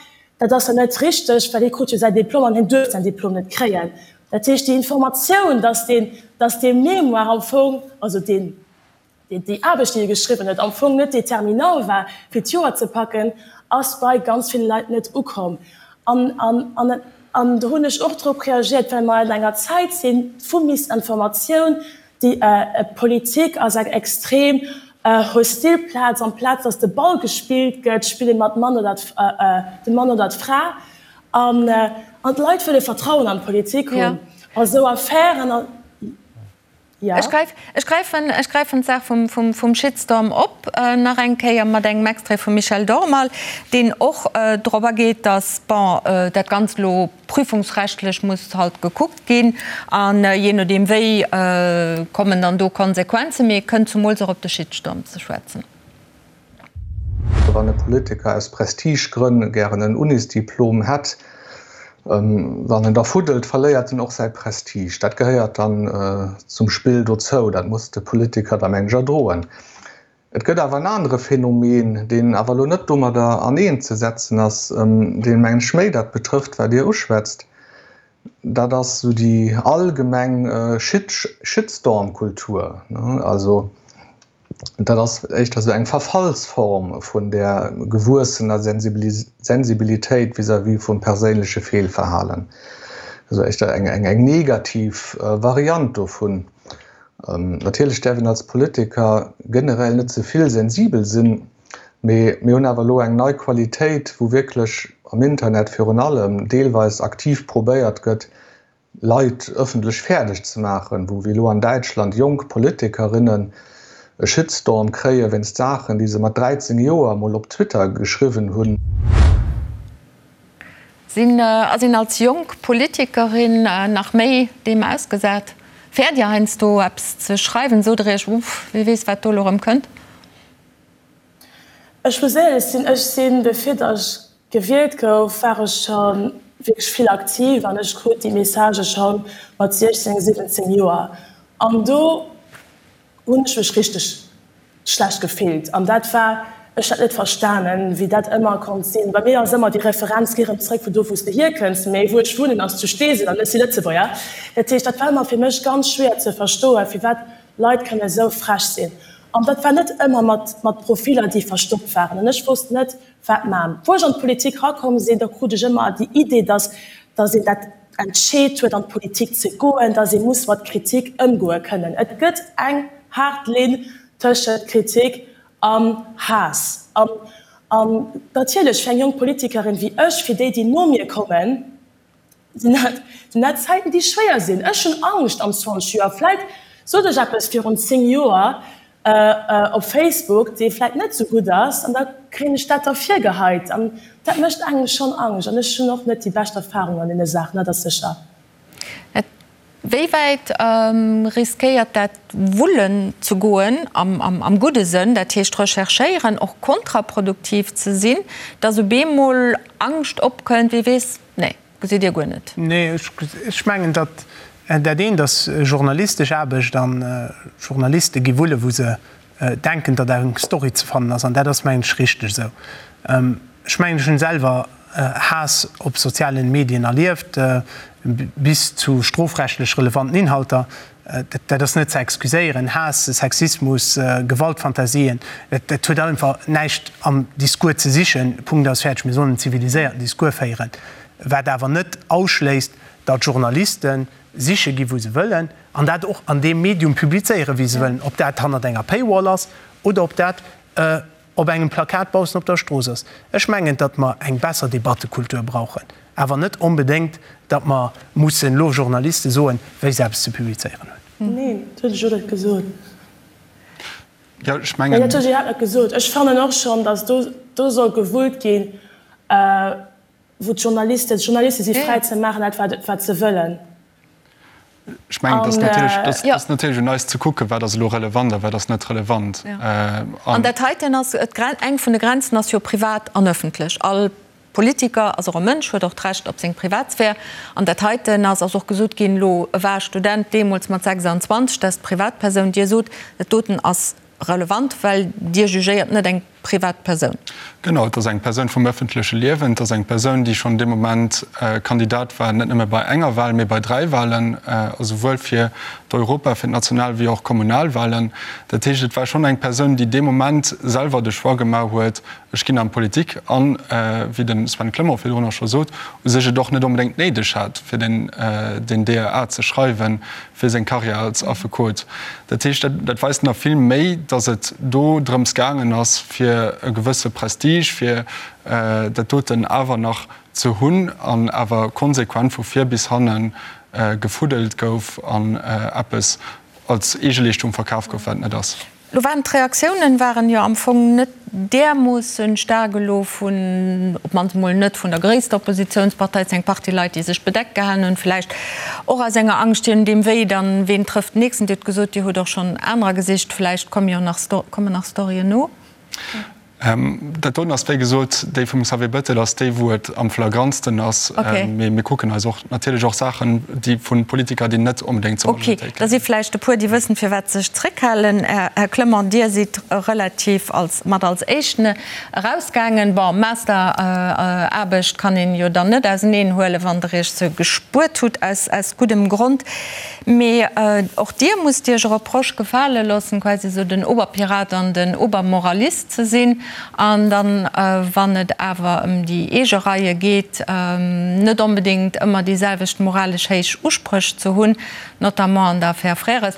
Dat ass jo net richteg, well hie krut jo säi Diplom an hien duerft säin Diplom net kréien. Dat heescht, déi Informatioun, dass deen, dass dee Mémoire am Fong, also deen, déi Aarbecht, déi e geschriwwen huet, am Fong net déterminant war, fir d'Joer ze packen, ass bei ganz ville Leit net ukomm. An, an, an, an do hunn ech och drop reagiert, well mer an enger Zäit si vu Misinformatioun, Déi Politik ass eng extrem hostil Plaz. Amplaz datt de Ball gespillt gëtt, spille mer de Mann oder de Mann oder d'Fra. An d'Leit wëlle Vertrauen an d'Politik hunn. A sou Affären a jo. Ech gräifen, ech gräifen d'Saach vum Shitstorm op nach eng Kéier mat engem Extrait vum Michel Dormal, deen och drop ageet, datt, bon, dat Ganzt elo Prüfungsrechtlech muss halt gekuckt ginn an jee nodeem wéi kommen dann do Konsequenzen. Mee et kënnt zumools och op de Shitstorm ze schwätzen. Wann e Politiker aus Prestigegrënn gären en Unisdiplom hätt, wann en da fuddelt, verléiert en och säi Prestige. Dat gehéiert dann zum Spill dozou. Dat muss de Politiker da mengen ech erdroen. Et gëtt awer en anere Phänomen, deen awer elo net domadder aneenzesetzen ass, deen, mengen ech, méi dat betrëfft, wat Dir uschwätzt. Dat ass esou déi allgemeng Shitstorm-Kultur. Also. Dat ass éischter esou eng Verfallsform vun där gewuessener Sensibilitéit vis-à-vis vum perséinleche Feelverhalen. Also éischter eng, eng negativ Variant dovun. Natierlech däerf een als Politiker generell net ze vill sensibel sinn, mee mir hunn awer elo eng nei Qualitéit, wou wierklech am Internet virun allem deelweis aktiv probéiert gëtt, Leit ëffentlech fäerdeg ze maachen, wou wéi elo an Däitschland jonk Politikerinnen e Shitstorm kréie wéinst Saachen, déi se mat 13 Joer mol op Twitter geschriwwen hunn. Sinn, ass een als jonk Politikerin nach méi deem ausgesat? Fäert Dir heiansdo eppes ze schreiwen? Sot Der Iech, Uff, wie weess wat do elo erëm kënnt? Ech muss éierlech sinn, ech sinn, bevir datt ech gewielt gouf, war ech scho wierklech vill aktiv an ech krut déi Messagë scho mat 16, 17 Joer. An do hunn ech mech richteg schlecht gefillt an dat war, ech hat net verstanen, wéi dat ëmmer konnt sinn. Bei mir ass ëmmer déi Referenz, Geh erëm zréck vun do, wou s de hierkënns, mee wou ech wunnen ass zu Steesel an ech si Lëtzebuerger. Dat heescht, dat war ëmmer fir mech ganz schwéier ze verstoen, firwat Leit kënne esou frech sinn. An dat war net ëmmer mat mat Profiller, déi verstoppt waren. An ech wosst net, wat man. Wou ech an d'Politik rakomm sinn, da krut ech ëmmer déi Idee, dass dass een dat entscheet huet, an d'Politik ze goen, dass ee muss mat Kritik ëmgoe kënnen. Et gëtt eng haart Linn tëschent Kritik an Haass. An an natierlech fir eng jonk Politikerin wéi ech, fir déi, déi no mir kommen, Sinn dat, sinn dat Zäiten, déi schwéier sinn. Ech hunn Angscht am 20 Joer. Vläit sot ech eppes virun 10 Joer op Facebook, dee vläit net esou gutt ass, an da kréien ech dat da virgeheit. An dat mécht engem schonn Angscht. An ech hunn och net déi bescht Erfahrung an deene Saachen, dat ass sécher. Wéi wäit riskéiert dat wullen ze goen, am gudde Sënn, dat heescht recherchéieren, och kontraproduktiv ze sinn, datt op eemol Angscht opkënnt, wie weess, nee, gesitt Dir guer net? Nee, ech mengen, datt dat eent ass journalistesch Aarbecht an Journaliste gi wulle wou se denken, datt eng Story ze fannen ass, an dat ass, mengen ech, richteg esou. Ech mengen, ech hunn selwer Haass op sozialen Medien erlieft, bis zu strofrechtlech relevanten Inhalter. Dat ass net ze excuséieren. Haass, Sexismus, Gewaltfantasien, dat huet einfach näischt am Discours ze sichen. Punkt, aus, fäerdeg. Mir sollen en ziviliséierten Discours féieren, wat awer net ausschléisst, datt Journalisten siche gi wou se wëllen an dat och an deem Medium publizéieren, wéi se wëllen, ob dat hannert enger Paywall ass oder ob dat op engem Plakat baussen op der Strooss ass. Ech mengen, datt mer eng besser Debattekultur brauchen, awer net onbedéngt, datt mer mussen elo Journaliste soen, wéi se eppes ze publizéieren hunn. Neen, dat hunn ech och net gesot. Jo, ech mengen. Nee, dat hunn ech iwwerhaapt net gesot. Ech fannen och schonn, datt do, do soll gewullt ginn, wou d'Journalisten, d'Journaliste si fräi ze maachen dat, wat, wat se wëllen. Ech mengen, et ass natierlech, et ass natierlech un eis ze kucken, wat ass elo relevant a wat ass net relevant. An dat heiten ass, eng vun de Grenzen ass jo privat an ëffentlech. All Politiker ass och e Mënsch, huet och d'Recht op seng Privatsphär. An dat heiten ass, ass och gesot ginn, elo e war Student deemools mat 26, dat ass d'Privatpersoun. Dir sot, dat doten ass relevant, well Dir jugéiert net eng privat Persoun. Genau, et ass eng Persoun vum ëffentleche Liewen, et ass eng Persoun, déi schonn dee Moment Kandidat war, net nëmme bei enger Wahl, mee bei dräi Wahlen, also souwuel fir d'Europa-, fir d'National wéi och Kommunalwahlen. Dat heescht, et war schonn eng Persoun, déi dee Moment selwer de Choix gemaach huet, ech ginn an d'Politik an, wéi de Sven Clement virdrun och scho sot, u sech et och net onbedéngt néideg hat, fir den DEA ze schreiwen, fir seng Karriär als Affekot. Dat heescht, dat weist nach vill méi, datt et do drëms gaangen ass, fir e gewësse Prestige, fir dat doten awer nach ze hunn an awer konsequent vu vir bis hanne gefuddelt gouf an eppes als Eegeleeschtung verkaf gouf, wat et net ass. Lo waren d'Reaktiounen waren jo am Fong net därmoossen staark elo vun, op d'mannst emol net vun der gréisster Oppositiounspartei. Et sinn eng Partie Leit, déi sech bedeckt gehalen hunn, vläicht och aus enger Angscht, je nodeem wéi dann, ween trëfft den nächsten. Dir hutt gesot, Dir hutt och schonn anerer gesicht, vläicht komme jo nach, kommen nach Storyen no. Dat doten ass, wéi gesot, déi vum Xavier Bettel ass déi, wou et am flagrantsten ass. Mee mir kucken eis och natierlech och Saachen, déi vu Politiker, déi net onbedéngt zur Majoritéit gehéieren. Ok, da si vläicht e puer, déi wëssen, firwat se sech zréckhalen. Här Clement, Dir sidd relativ als mat als Éischten erausgaangen. Bon, Masteraarbecht kann een jo dann net auseneen huelen, wann Der Iech se gespuert hutt, aus guddem Grond. Mee och Dir musst Iech e Reproche gefale loossen, quasi esou den Oberpirat an den Obermoralist ze sinn. An dann, wann et awer ëm déi eege Reie geet, net onbedéngt ëmmer déi selwecht moralesch héich Uspréch ze hunn, notamment an der Affär Frères.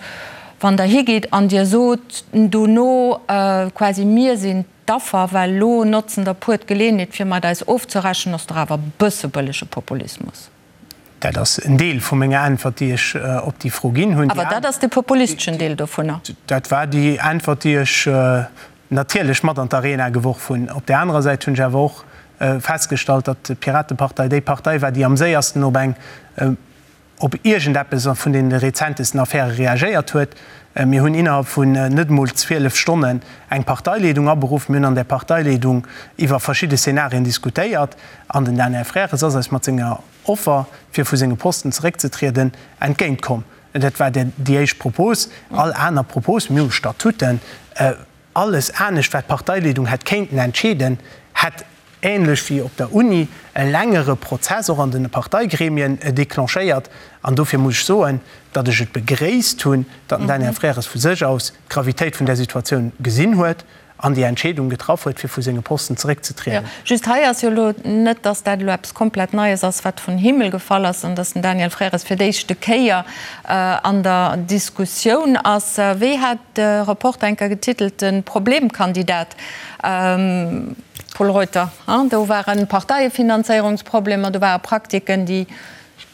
Wann Der higitt an Dir sot dono quasi, mir sinn d'Affer, well elo notzen der puer d'Geleeënheet, fir mat eis ofzerechnen, ass dach awer e bësse bëllege Populismus. Dat ass en Deel vu menger Äntwert, déi ech op déi Fro ginn hunn. Awer dat ass de populisteschen Deel dovunner. Dat war déi Äntwert, déi ech natierlech mat an d'Arena geworf hunn. Op där anerer Säit hunn ech awer och festgestallt, datt d'Piratepartei déi Partei war, déi am séiersten op eng, op iergendeppes vun deene rezentesten Affäre reagéiert huet. Mir hunn innerhalb vun net emol 12 Stonnen eng Parteileedung aberuff. Mir hunn an där Parteileedung iwwer verschidde Szenarien diskutéiert. An den Daniel Frères ass eis mat senger Offer, fir vu senge Posten zeréckzetrieden, entgéint komm. Dat war déi éischt Propos. All aner Propos, mir hu Statuten, alles anescht, wat d'Parteileedung hätt kéinten entscheeden, hätt, ähnlech wéi op der Uni, e längere Prozess och an de Parteigremien declenchéiert. An dofir muss ech soen, datt ech et begréisst hunn, datt den Daniel Frères vu sech aus d'Gravitéit vun där Situatioun gesinn huet an déi Entscheedung getraff huet, fir vu senge Posten zeréckzetrieden. Just hei ass jo elo net, datt dat elo eppes komplett Neies ass, wat vun Himmel gefall ass, an datt den Daniel Frères fir d'éischte Kéier an der Diskussioun ass. Wéi hat de Reporter enker getitelt, de Problemkandidat? Pol Reuter, Do ware Parteiefinanzéierungsproblemer, do ware Praktiken, déi.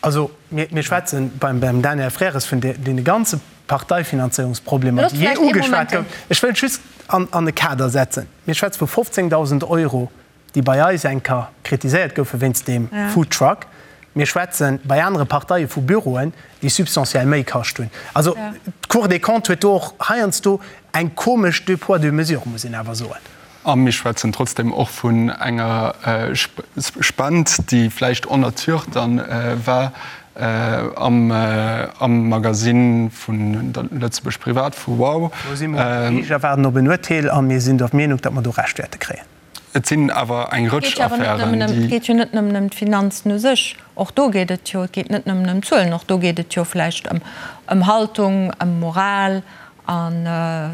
Also mir schwätzen beim Daniel Frères vun deene ganze Parteifinanzéierungsproblemer, déi jee ugeschwat goufen. Ech wëll just an e Kader setzen. Mir schwätze vu 15.000 Euro, déi bei eis eng Kéier kritiséiert goufe wéinst deem Foodtruck. Mir schwätze bei anere Parteie vu Büroen, déi substantiell méi kascht hunn. Also d'Cour des Comptes huet do och heiansdo eng komesch deux poids, deux mesures, muss een awer soen. A mir schwätzen trotzdem och vun enger Spend, déi vläicht en nature dann war am Magasinn vun der Lëtzebuerg Privat, vu Wow. Do si mer um Geriicht a waarden op en Urteel a mir sinn der Meenung, datt mer do Recht wäerte kréien. Et sinn awer eng Rëtsch Affären, déi. Et geet jo net nëmmen ëm d'Finanzen u sech, och do geet et jo, et geet net nëmmen ëm Zuelen, och do geet et jo vläicht ëm Haltung, ëm Moral, An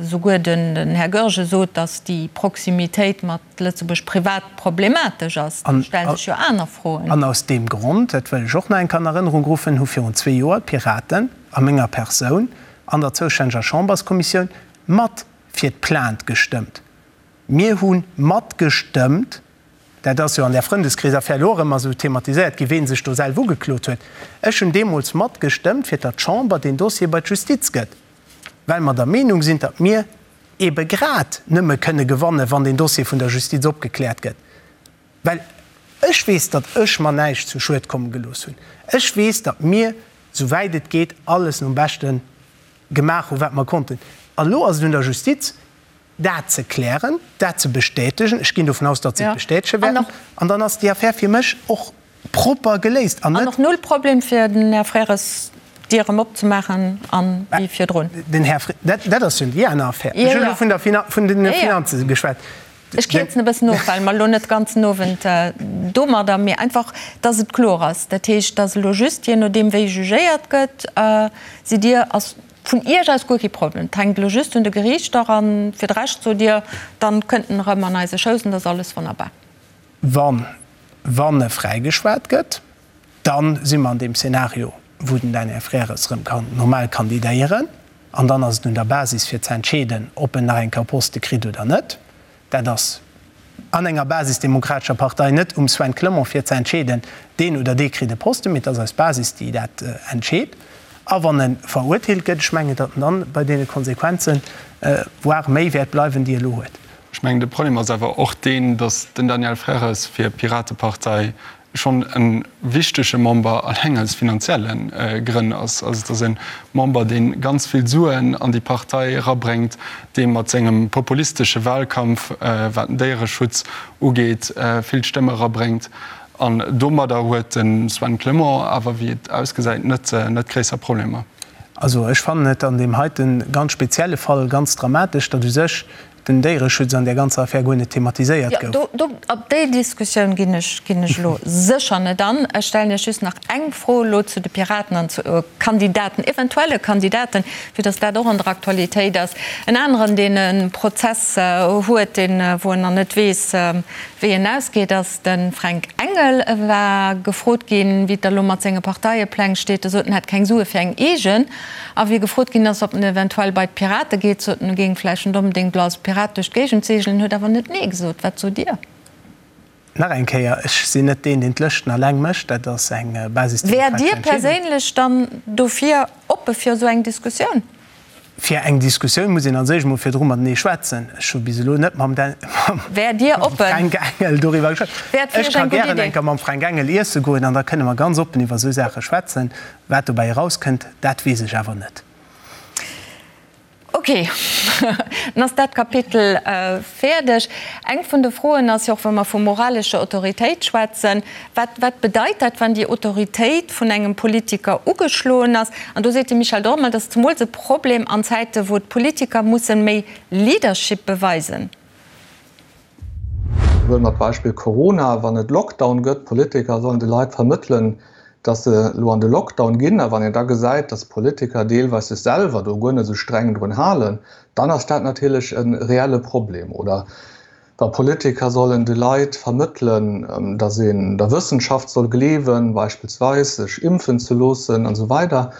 esouguer den Här Goergen sot, datt déi Proximitéit mat Lëtzebuerg privat problematesch ass. Do stelle sech jo aner Froen. An aus deem Grond, dat wëll ech och nach eng Kéier an Erënnerung ruffen, hu virun zwee Joer d'Piraten a menger Persoun an der zoustänneger Chamberskommissioun mat fir d'Plainte gestëmmt. Mir hu matgestëmmt, dat ass jo an där Frëndeskreesaffär elo och ëmmer esou thematiséiert ginn, ween sech do selw ugeklot huet. Ech hunn deemools matgestëmmt, fir datt d'Chamber deen Dossier bei d'Justiz gëtt, well mer der Meenung sinn, datt mir eebe grad nëmme kënne gewannen, wann deen Dossier vun der Justiz opgekläert gëtt. Well ech weess, datt ech mer näischt zu Schued komme gelooss hunn. Ech weess, datt mir, souwäit et geet, alles nom Beschte gemaach hunn, wat mer konnten. An elo ass et un der Justiz, dat ze klären, dat ze bestätegen, ech ginn dovun aus, datt se et bestätege wäerten, an dann ass déi Affär fir mech och propper geléist an net. An och null Problem fir den Här Frères d'Dier erëm opzemaachen an wéi virdrun. Den Här Fre, dat, dat ass jo déi aner Affär. Ech hunn elo vun der Finan, vun den Finanze geschwat. Ech kierzen e bëssen of, well mer elo net de ganzen Owend domadder, mee einfach, datt et kloer ass. Dat heescht, datt elo just, jee nodeem wéi jugéiert gëtt, sidd Dir, ass Vun Iech aus guer kee Problem. Et hänkt elo just un de Geriichter an fir de Rescht sot Dir, dann kënnt en erëm an eise Schouss an da ass alles wonnerbar. Wann, wann e fräigeschwat gëtt, dann si mer an deem Szenario, wou den Daniel Frères erëm kann normal kandidéieren an dann ass et un der Basis fir ze entscheeden, ob en nach eng Kéier Poste kritt oder net. Dat ass an enger basisdemokratescher Partei net um Sven Clement fir ze entscheeden, deen oder dee kritt e Posten, mee et ass eis Basis, déi dat entscheet. A wann e verurteelt gëtt, ech mengen, datt en dann bei deene Konsequenzen, voire méi wäert bleiwen, déi e elo huet. Ech mengen, de Problem ass awer och deen, datt den Daniel Frères fir d'Piratepartei. schonn e wichtege Member alleng aus finanzielle Grënn ass. Also et ass e Member, dee ganz vill Suen an déi Partei erabréngt, dee mat sengem populistesche Wahlkampf, wat den Déiereschutz ugeet, vill Stëmme erabréngt. An domadder huet de Sven Clement awer, wéi et ausgesäit, net net gréisser Problemer. Also ech fannen et an deem heite ganz spezielle Fall ganz dramatesch, datt u sech den Déiereschutz an där ganzer Affär guer net thematiséiert gouf. Jo, do, op déi Diskussioun ginn ech, ginn ech elo sécher net an. Ech stellen Iech just nach eng Fro elo zu de Piraten an zu Kandidaten, eventuelle Kandidaten, fir datt dat och an der Aktualitéit ass. En aneren, deen e Prozess huet, deen, wou en nach net weess, wéi en ausgeet, ass de Fränk Engel. E war gefrot ginn, wéi et da elo mat senge Parteiepläng steet. E sot, en hätt keng Sue fir eng eegen. A wéi gefrot ginn ass, ob en eventuell bei d'Pirate geet, sot en, e géing vläicht net onbedéngt elo als Pirat duerch d'Géigend seegelen, huet awer net Nee gesot. Wat sot Dir? Nach eng Kéier, ech sinn net deen, deen d'Lëschten alleng mécht. Dat ass eng basisdemokratesch Wäert Dir Entscheedung. perséinlech dann dofir oppe fir esou eng Diskussioun? Fir eng Diskussioun muss een als éischt emol virdru matenee schwätzen. Ech hu bis elo net mam Wäert Dir oppen? Fränk Engel doriwwer geschwat. Wäert fir Ech Iech ka eng gutt gären Idee. eng Kéier mam Fränk Engel iesse goen an da kënne mer ganz oppen iwwer esou Saache schwätzen. Wat dobäi erauskënnt, dat weess ech awer net. Ok, dann ass dat Kapitel fäerdeg. Eng vun de Froen ass jo och, wa mer vu moralescher Autoritéit schwätzen, Wat, wat bedeit dat, wann déi Autoritéit vun engem Politiker ugeschloen ass? An do seet de Michel Dormel, dat ass zemools e Problem an Zäite wou d'Politiker mussen méi Leadership beweisen. Huele mer d'Beispill Corona, Wann et Lockdown gëtt, d'Politiker sollen de Leit vermëttelen, datt se elo an de Lockdown ginn. A wann een da gesäit, datt d'Politiker deelweis sech selwer do guer net esou streng drun halen, dann ass dat natierlech e reelle Problem. Oder wa Politiker sollen de Leit vermëttelen, datt een der Wëssenschaft soll gleewen, beispillsweis sech impfen ze loossen an esou weider,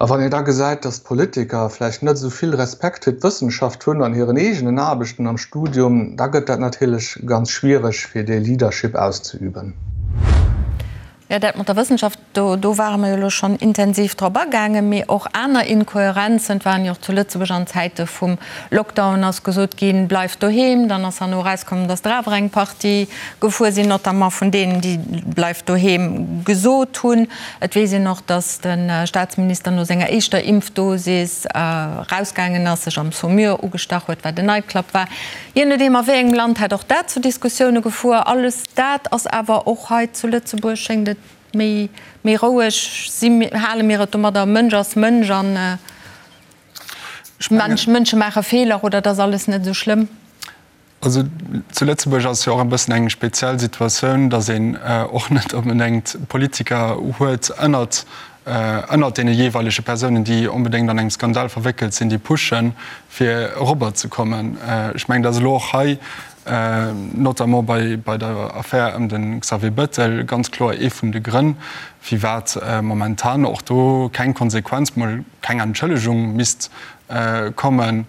A wann een da gesäit, dass d'Politiker vläicht net esou vill Respekt fir d'Wëssenschaft hunn an hiren eegenen Aarbechten am Studium, da gëtt dat natierlech ganz schwiereg, fir dee Leadership auszeüben. Jo, dat mat der Wëssenschaft, do do ware mer jo elo schonn intensiv drop agaangen. Mee och aner Inkohärenzen, et waren jo och zu Lëtzebuerg an Zäite vum Lockdown ass gesot ginn, bleift doheem, dann ass herno erauskomm, dass der awer eng Partie gefuer sinn, notamment vun deenen, déi bleift doheem gesot hunn. Et weess een och, datt de Staatsminister no senger éischter Impfdosis erausgaangen ass, sech am Saumur ugestach huet, wat en Nightclub war. Jee nodeem a wéi engem Land hätt och dat zu Diskussioune gefuer. Alles dat ass awer och hei zu Lëtzebuerg, schéngt et, méi méi roueg. Si hale mir et domadder, Mënsch ass Mënsch an Mënsche maache Feeler oder et ass alles net esou schlëmm? Also zu Lëtzebuerg ass jo och e bëssen eng speziell Situatioun, datt een och net onbedéngt Politiker huet ënnert ënnert deene jeeweilege Persounen, déi onbedéngt an engem Skandal verwéckelt sinn, déi pushen, fir erobber ze kommen. Ech mengen, datt elo och hei, notamment bei bei der Affär ëm de Xavier Bettel, ganz kloer ee vun de Grënn, firwat momentan och do keng Konsequenz, mol keng Entschëllegung misst kommen,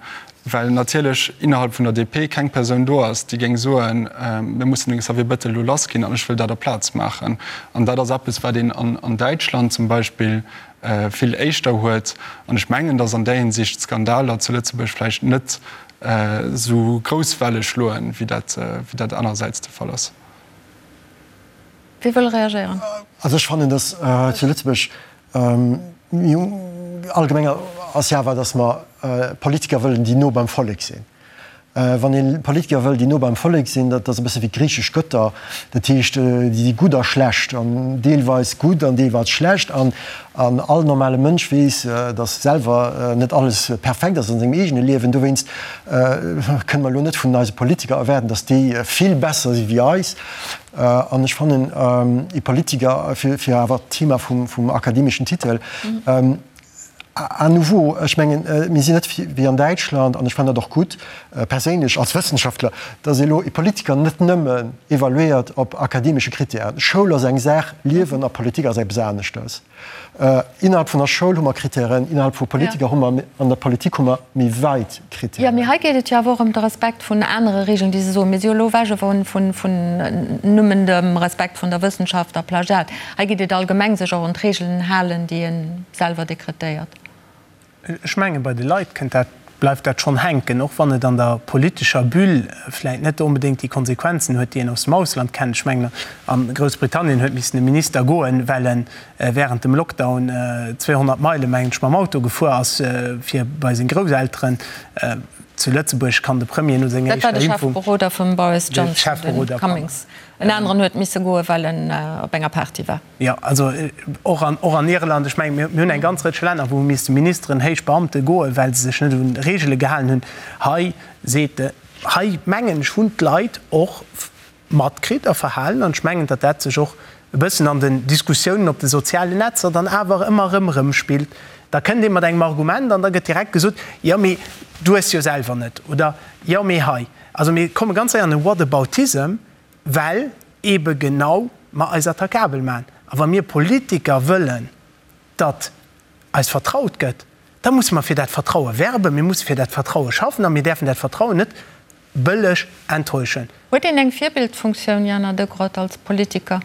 well natierlech innerhalb vun der DP keng Persoun do ass, déi géing soen, mir mussen de Xavier Bettel elo lassginn an ech wëll dat a Plaz maachen. An dat ass eppes, wat een an Däitschland zum Beispill vill éischter huet. An ech mengen, datt an där Hinsicht d'Skandaler zu Lëtzebuerg vläicht net esou grouss Welle schloen, wéi dat anerersäits de Fall ass. Wie wëll reagéieren? Also ech fannen, datt zu Lëtzebuerg Allgemeng ass jo awer, datt mer Politiker wëllen, déi no beim Vollek sinn. Wann ee Politiker wëll, déi no beim Vollek sinn, dat ass e bësse wéi d'griichesch Gëtter, dat heescht, déi si gutt a schlecht an deelweis gutt an deelweis schlecht. An all normale Mënsch weess, datt selwer net alles perfekt ass an sengem eegene Liewen. Dowéinst kënne mer elo net vun eise Politiker erwaarden, datt déi vill besser si wéi eis. An ech fannen, ee Politiker, fir awer d'Thema vum akademeschen Titel, à nouveau, ech mengen, mir sinn net wéi an Däitschland, an ech fannen dat och gutt, perséinlech als Wëssenschaftler, datt ee elo ee Politiker net nëmmen evaluéiert op akademesche Kritären. Schoul ass eng Saach, Liewen a Politik ass eppes aneschters. Innerhalb vun der Schoul hu mer Kritären, innerhalb vu Politiker hu mer, an der Politik hu mer méi weit Kritären. Jo, mee hei geet et jo awer och ëm de Respekt vun anere Regeln, déi se soen. Mir si jo elo ewech vun nëmmen dem Respekt vun der Wëssenschaft a Plagiat. Hei geet et allgemeng, sech och un d'Regeln halen, déi ee selwer dekretéiert. Ech mengen, bei de Leit kënnt dat. bleift dat schonn hänken, och wann et an der politescher Bulle vläit net onbedéngt déi Konsequenzen huet, déi een aus dem Ausland kennt. Ech mengen, a Groussbritannien huet missen e Minister goen, well e während dem Lockdown 200 Meile, mengen ech, mam Auto gefuer ass, fir bei seng Grousselteren. Zu Lëtzebuerg kann de Premier no senger éischter Impfung. Dat war de Chefberoder vum Boris Johnson, de Cummings. En aneren huet misse goen, well en op enger Party war. Jo, also och an, och an Irland. Ech mengen, mir hunn eng ganz Rëtsch Länner, wou hu misste Ministeren, héich Beamte goen, well se sech net un Reegele gehalen hunn. Hei seet de, hei mengen ech, hunn d'Leit och matkritt a verhalen, an ech mengen, datt dat sech och e bëssen an den Diskussiounen op de sozialen Netzer dann awer ëmmer erëm erëmspillt. Da kënnt ee mat engem Argument an da gëtt direkt gesot, jo mee du hues jo selwer net oder jo mee hei. Also mir komme ganz séier an e Whataboutism, well eebe genau mer eis attaquabel maachen. A wa mir Politiker wëllen, datt eis vertraut gëtt, da musse mer fir dat Vertraue werben, mir musse fir dat Vertraue schaffen a mir däerfen dat Vertrauen net bëlleg enttäuschen. Huet een eng Virbildfunktioun, Jana Degrott, als Politiker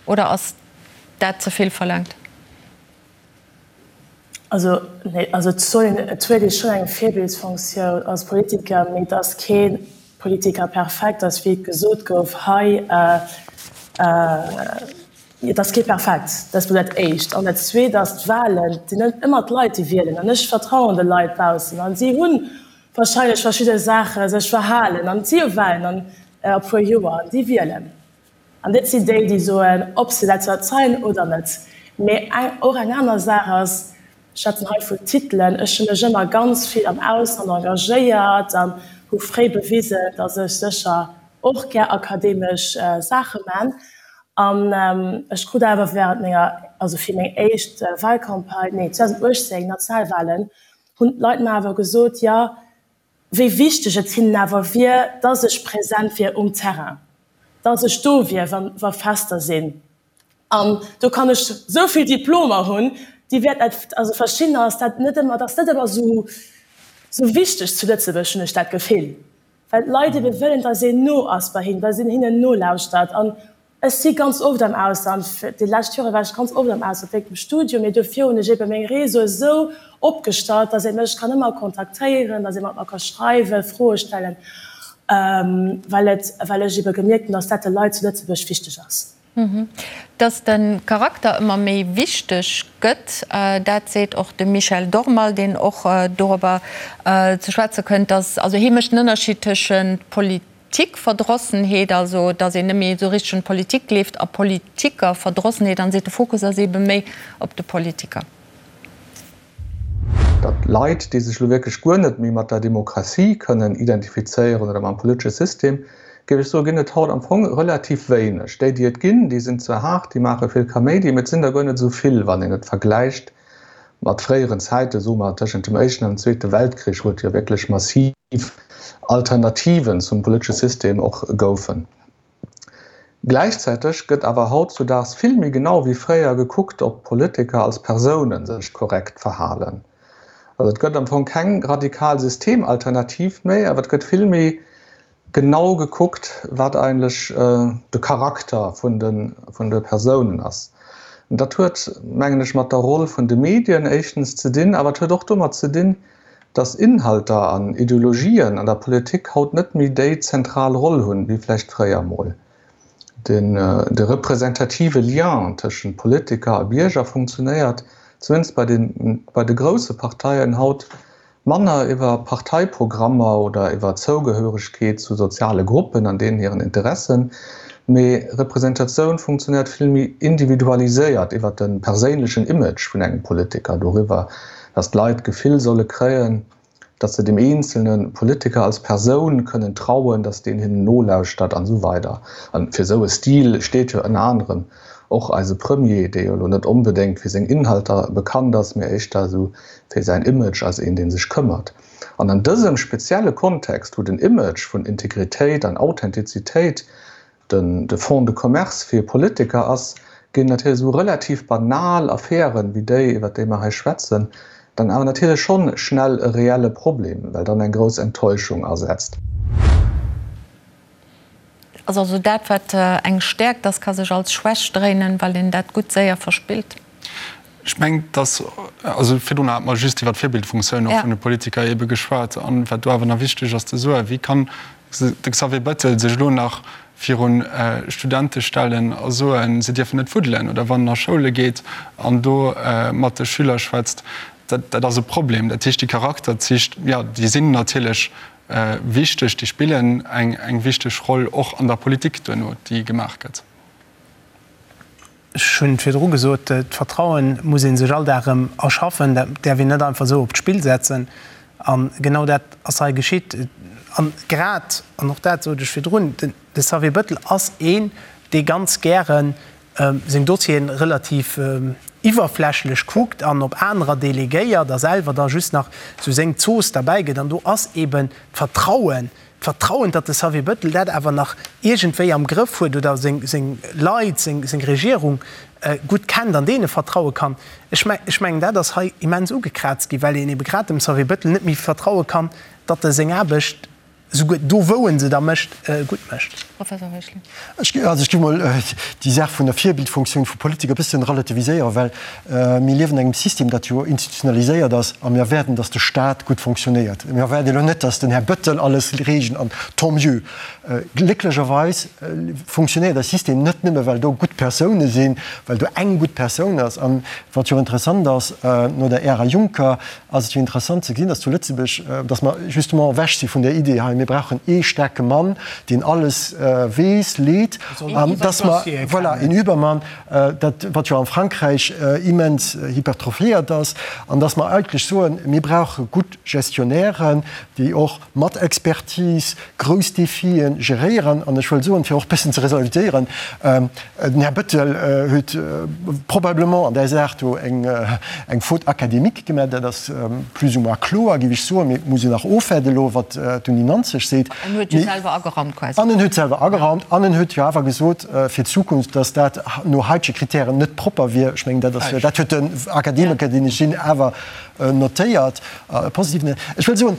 oder ass dat ze vill verlaangt? Also, nee, also et soll een, et huet ee schonn eng Virbildsfonktioun als Politiker, mee et ass kee Politiker perfekt ass, wéi et gesot gouf hei. Et ass kee perfekt, dat ass mol dat Éischt. An dat Zweet ass, d'Wahlen, et sinn net ëmmer d'Leit, déi wielen. An ech vertrauen de Leit baussen a si hu wahrscheinlech verschidde Saache sech verhalen an et si jo Wahlen an e puer Joer an déi wielen. An dat sinn déi, déi soen, ob se dat verzeien oder net. Mee eng, och eng aner Saach ass, ech schwätzen hei vun Titelen, ech hu mech ëmmer ganz vill am Ausland engagéiert an hu fréi bewisen, datt ech sécher och gär akademesch Saache man. An ech krut awer während menger, also fir meng éischt Wahlcampagne, nee 2018, Nationalwahlen, hunn d'Leit mer awer gesot, jo, wéi wichteg et hinnen awer wier, dass ech present wier um Terrain, dass ech do wier, wa Fester sinn. An do kann ech esou vill Diplomer hunn, déi wäert net, also verschiddener ass dat net ëmmer, dat ass net ëmmer esou esou wichteg zu Lëtzebuerg, hunn ech dat Gefill, well d'Leit ebe wëllen, dass een no ass bei hinnen, dass een hinnen nolauschtert. An Ech si ganz oft am Ausland, déi lescht Jore war ech ganz oft am Ausland wéinst dem Studium, mee dofir hunn ech ebe meng Réseaue esou opgestallt, dass ee mech kann ëmmer kontaktéieren, dass ee mat mer ka schreiwen, Froe stellen, well et, well ech ebe gemierkt hunn, dass dat de Leit zu Lëtzebuerg wichteg ass. Dass de Charakter ëmmer méi wichteg gëtt, dat seet och de Michel Dormal, deen och dorobber ze schwätze kënnt, dass, also hie mécht den Ënnerscheed tëschent Politik, Politikverdrossenheet, also datt een net méi esou richteg un d'Politik gleeft, a Politikerverdrossenheet, an seet, de Fokus ass eebe méi op de Politiker. Datt Leit, déi sech elo wierklech guer net méi mat der Demokratie kënnen identifizéieren oder mam politesche System, géif ech soen, ginn et haut am Fong relativ wéineg. Déi, déi et ginn, déi sinn zwar haart, déi maache vill Kaméidi, mee et sinn der guer net esou vill, wann een et vergläicht mat fréieren Zäiten, soe mer tëschent dem Éischten an dem Zweete Weltkrich, wou et jo wierklech massiv Alternativen zum politesche System och goufen. Gläichzäiteg gëtt awer hautzudaags vill méi genau wéi fréier gekuckt, ob Politiker als Persoune sech korrekt verhalen. Also et gëtt am Fong keng radikal Systemalternativ méi, awer et gëtt vill méi genau gekuckt, wat eigentlech de Charakter vun de Persounen ass. Dat huet, mengen ech, mat der Roll vun de Medien éischtens ze dinn, awer et huet och domat ze dinn, datt Inhalter an Ideologien an der Politik haut net méi déi zentral Roll hunn, wéi vläicht fréier emol. De representative Lien tëschent Politiker a Bierger funktionéiert, zumindest bei de grousse Parteien, haut Manner iwwer Parteiprogrammer oder iwwer Zougehöregkeet zu soziale Gruppen an deenen hiren Interessen, mee Representatioun funktionéiert vill méi individualiséiert iwwer de perséinlechen Image vun engem Politiker, doriwwer, datt d'Leit d'Gefill solle kréien, datt se dem eenzelne Politiker als Persoun kënnen trauen, datt deen hinnen nolauschtert an esou weider. An fir esou e Stil steet jo ënner anerem och eise Premier, dee jo elo net onbedéngt fir seng Inhalter bekannt ass, mee éischter esou fir säin Image als een, dee sech këmmert. An an dësem spezielle Kontext, wou den Image vun Integritéit an Authentizitéit den de Fonds de commerce fir Politiker ass, ginn natierlech esou relativ banal Affären, wéi déi, iwwert déi mer hei schwätzen, dann awer natierlech schonn schnell e reelle Problem, well dann eng grouss Enttäuschung asetzt. Ass also dat, wat eng Stäerkt ass, ka sech als Schwächt dréinen, well een dat gutt séier verspillt. Ech mengen, dass, also virdrun hate mer just iwwer d'Virbildfunktioun och vun de Politiker eebe geschwat. An wat do awer nach wichteg ass ze soen, Wéi kann de Xavier Bettel sech elo nach viru Studente stellen a soen, se dierfen net fuddelen? Oder wann en a Schoule geet an do mat de Schüler schwätzt, dat, dat ass e Problem. Dat heescht, déi Charakterzich, jo, déi sinn natierlech wichteg, déi spillen eng, eng wichteg Roll och an der Politik duerno, déi gemaach gëtt. Ech hunn virdru gesot, d'Vertrauen muss ee sech all Dag erëm erschaffen. Dat däerf een net einfach esou op d'Spill setzen. A genau dat ass hei geschitt. A grad, an och dat sot ech virdrun, de Xavier Bettel ass een, dee ganz gäre seng Dossieren relativ iwwerflächlech kuckt an op anerer delegéiert a selwer da just nach esou seng Zooss derbäi gëtt. An do ass eeben d'Vertrauen D'Vertrauen, datt de Xavier Bettel dat awer nach iergendwéi am Grëff huet oder seng Leit, seng Regierung gutt kennt an deene vertraue kann, ech mengen, dat ass hei immens ugekraazt ginn, well een ebe grad dem Xavier Bettel net méi vertraue kann, datt e seng Aarbecht, souguer do wou en se da mécht, gutt mécht. Professor Heuschling. Ech géif mol déi Saach vun der Virbildfunktioun vu Politiker e bëssen relativiséieren, well Mir liewen an engem System, dat jo institutionaliséiert ass, a mir erwaarden, dass de Stat gutt fonctionnéiert. Mir erwaarde elo net, dass den Här Bettel alles reegelt, an tant mieux. Glécklecherweis fonctionnéiert eist System net nëmme, well do gutt Persoune sinn, well do eng gutt Persoun ass. An wat jo interessant ass, no der Ära Juncker ass et jo interessant ze gesinn, dass zu Lëtzebuerg, dass mer justement ewech si vun där Idee hei, mir brauchen ee staarke Mann, deen alles weess, leet, an dass mer, voilà, een Übermann, dat wat jo am Frankräich immens hypertrophiéiert ass, an dass mer eigentlech soen, mir brauche gutt Gestionnairen, déi och mat Expertise grouss Defie geréieren. An ech wëll soen, fir och e bëssen ze resalutieren, den Här Bettel huet probablement an där Saach do eng Faute académique gemaach, dat ass plus ou moins kloer, géif ech soen, mee et muss een nach ofwaarden elo, wat d'Uni Nanzeg seet. En huet jo selwer ageraumt quasi. An en huet selwer ageraumt an en huet jo awer gesot fir d'Zukunft, datt dat no haitege Kritären net propper wier. Ech mengen, dat ass, dat huet den Akademiker, deen ech sinn, awer notéiert, positiv. Ech wëll soen,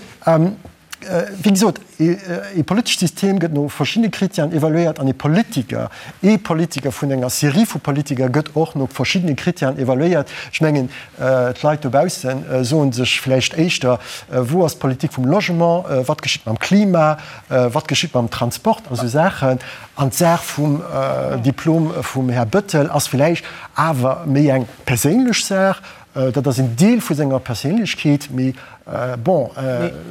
wéi gesot, ee politescht System gëtt no verschiddene Kritären evaluéiert an ee Politiker, ee Politiker vun enger Serie vu Politiker gëtt och no verschiddene Kritären evaluéiert. Ech mengen, D'Leit dobausse soe sech vläicht éischter, Wou ass d'Politik vum Logement? Wat geschitt mam Klima? Wat geschitt mam Transport? A sou Saachen. An d'Saach vum Diplom vum Här Bettel ass vläicht awer méi eng perséinlech Saach. Dat ass en Deel vu senger Perséinlechkeet. Mee bon,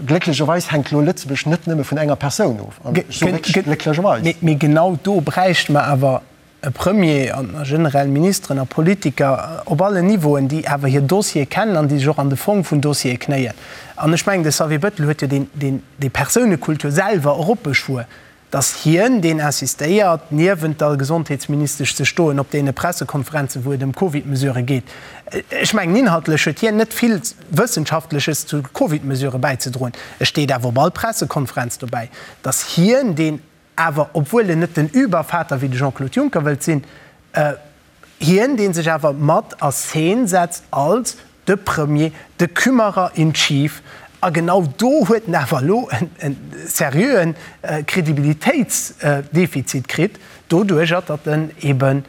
glécklecherweis hänkt elo Lëtzebuerg net nëmme vun enger Persoun of. An ech soe wierklech glécklecherweis. Mee genau do bräichte mer awer e Premier an generell Ministeren a Politiker op allen Niveauen, déi awer hir Dossiere kennen an déi sech och an de Fong vun Dossiere knéien. An ech mengen, de Xavier Bettel huet jo deen, déi Persounekultur selwer eropbeschwuer, datt hien deen insistéiert, niewent der Gesondheetsministesch ze stoen op deene Pressekonferenzen, wou et ëm Covid-Mesurë geet. Ech mengen, inhaltlech huet hien net vill Wëssenschaftleches zu Covid-Mesurë bäizedroen. E steet awer op all Pressekonferenz dobäi, datt hien deen Awer obwuel en net den Übervater wéi de Jean-Claude Juncker wëllt sinn, hien dee sech awer mat a Scene setzt als de Premier, de Kümmerer in chief, a genau do huet en awer elo e seriöen Kredibilitéitsdefizit kritt, doduerjer datt en ebe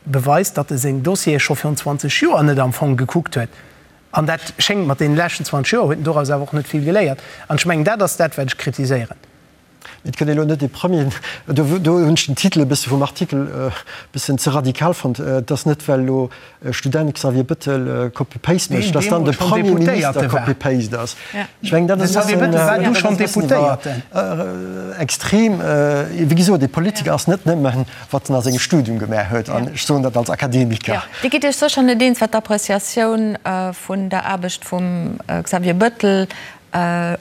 beweist, datt e seng Dossiere scho virun 20 Joer net am Fong gekuckt huet. An dat schéngt mat deene leschten 20 Joer huet en doraus awer och net vill geléiert. An ech mengen, dat ass dat wat ech kritiséieren. Et gëtt elo net ee Premier, do hunn ech den Titel e bësse vum Artikel e bëssen ze radikal fonnt. Et ass net, well elo e Student Xavier Bettel Copy-Paste mécht, datt dann de Premierminister Copy-Paste ass. Ech mengen, dat ass e bëssen iwwer extrem. Wéi gesot, ee Politiker ass net nëmmen, wat en a sengem Studium gemaach huet. An ech soen dat als Akademiker. Dir gitt Iech sécher net eens, wat d'Appreciatioun vun der Aarbecht vum Xavier Bettel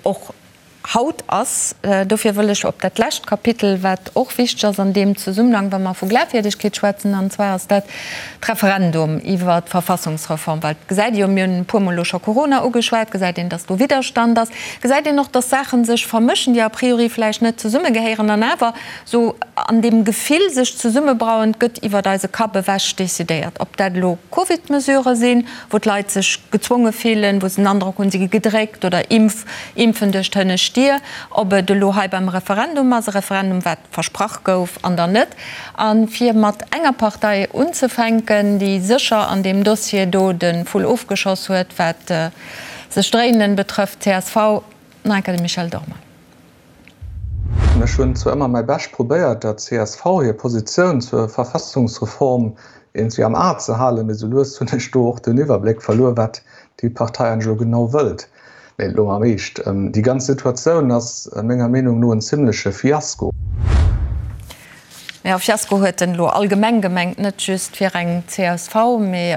och haut ass. Dofir wëll ech op dat lescht Kapitel, wat och wichteg ass an deem Zesummenhang, wa mer vu Glafwierdegkeet schwätzen, an zwar ass dat d'Referendum iwwert d'Verfassungsreform, well et gesäit ee jo, mir hunn e puermol elo scho Corona ugeschwat, gesäit een, dass do Widderstand ass, gesäit een och, dass Saache sech vermëschen, déi a priori vläicht net zesummegehéieren an awer esou an deem Gefill sech zesummebrauen, et gëtt iwwert eise Kapp ewech decidéiert, ob dat elo Covid-Mesurë sinn, wou d'Leit sech gezwonge fillen, wou se den Androck hunn, si gi gedréckt oder Impf, Impfen duerch d'hënnescht. Stier, ob et elo hei beim Referendum ass, e Referendum wat versprach gouf an dann net. A fir mat enger Partei unzefänken, déi sécher an deem Dossier do de Vull ofgeschoss huet, wat sech dréinen betrëfft, csv, nach eng Kéier de Michel Dormann. Ech hunn zwar ëmmer mäi Bescht probéiert, der csv hir Positioun zur Verfassungsreform iergendwéi am A ze halen, mee sou lues hunn ech do och den Iwwerbléck verluer, wat déi Partei eigentlech elo genau wëllt. Mee elo am Eescht, déi ganz Situatioun ass menger Meenung no en zimleche Fiasko. Jo, Fiasko huet en elo allgemeng gemengt, net just fir eng csv, mee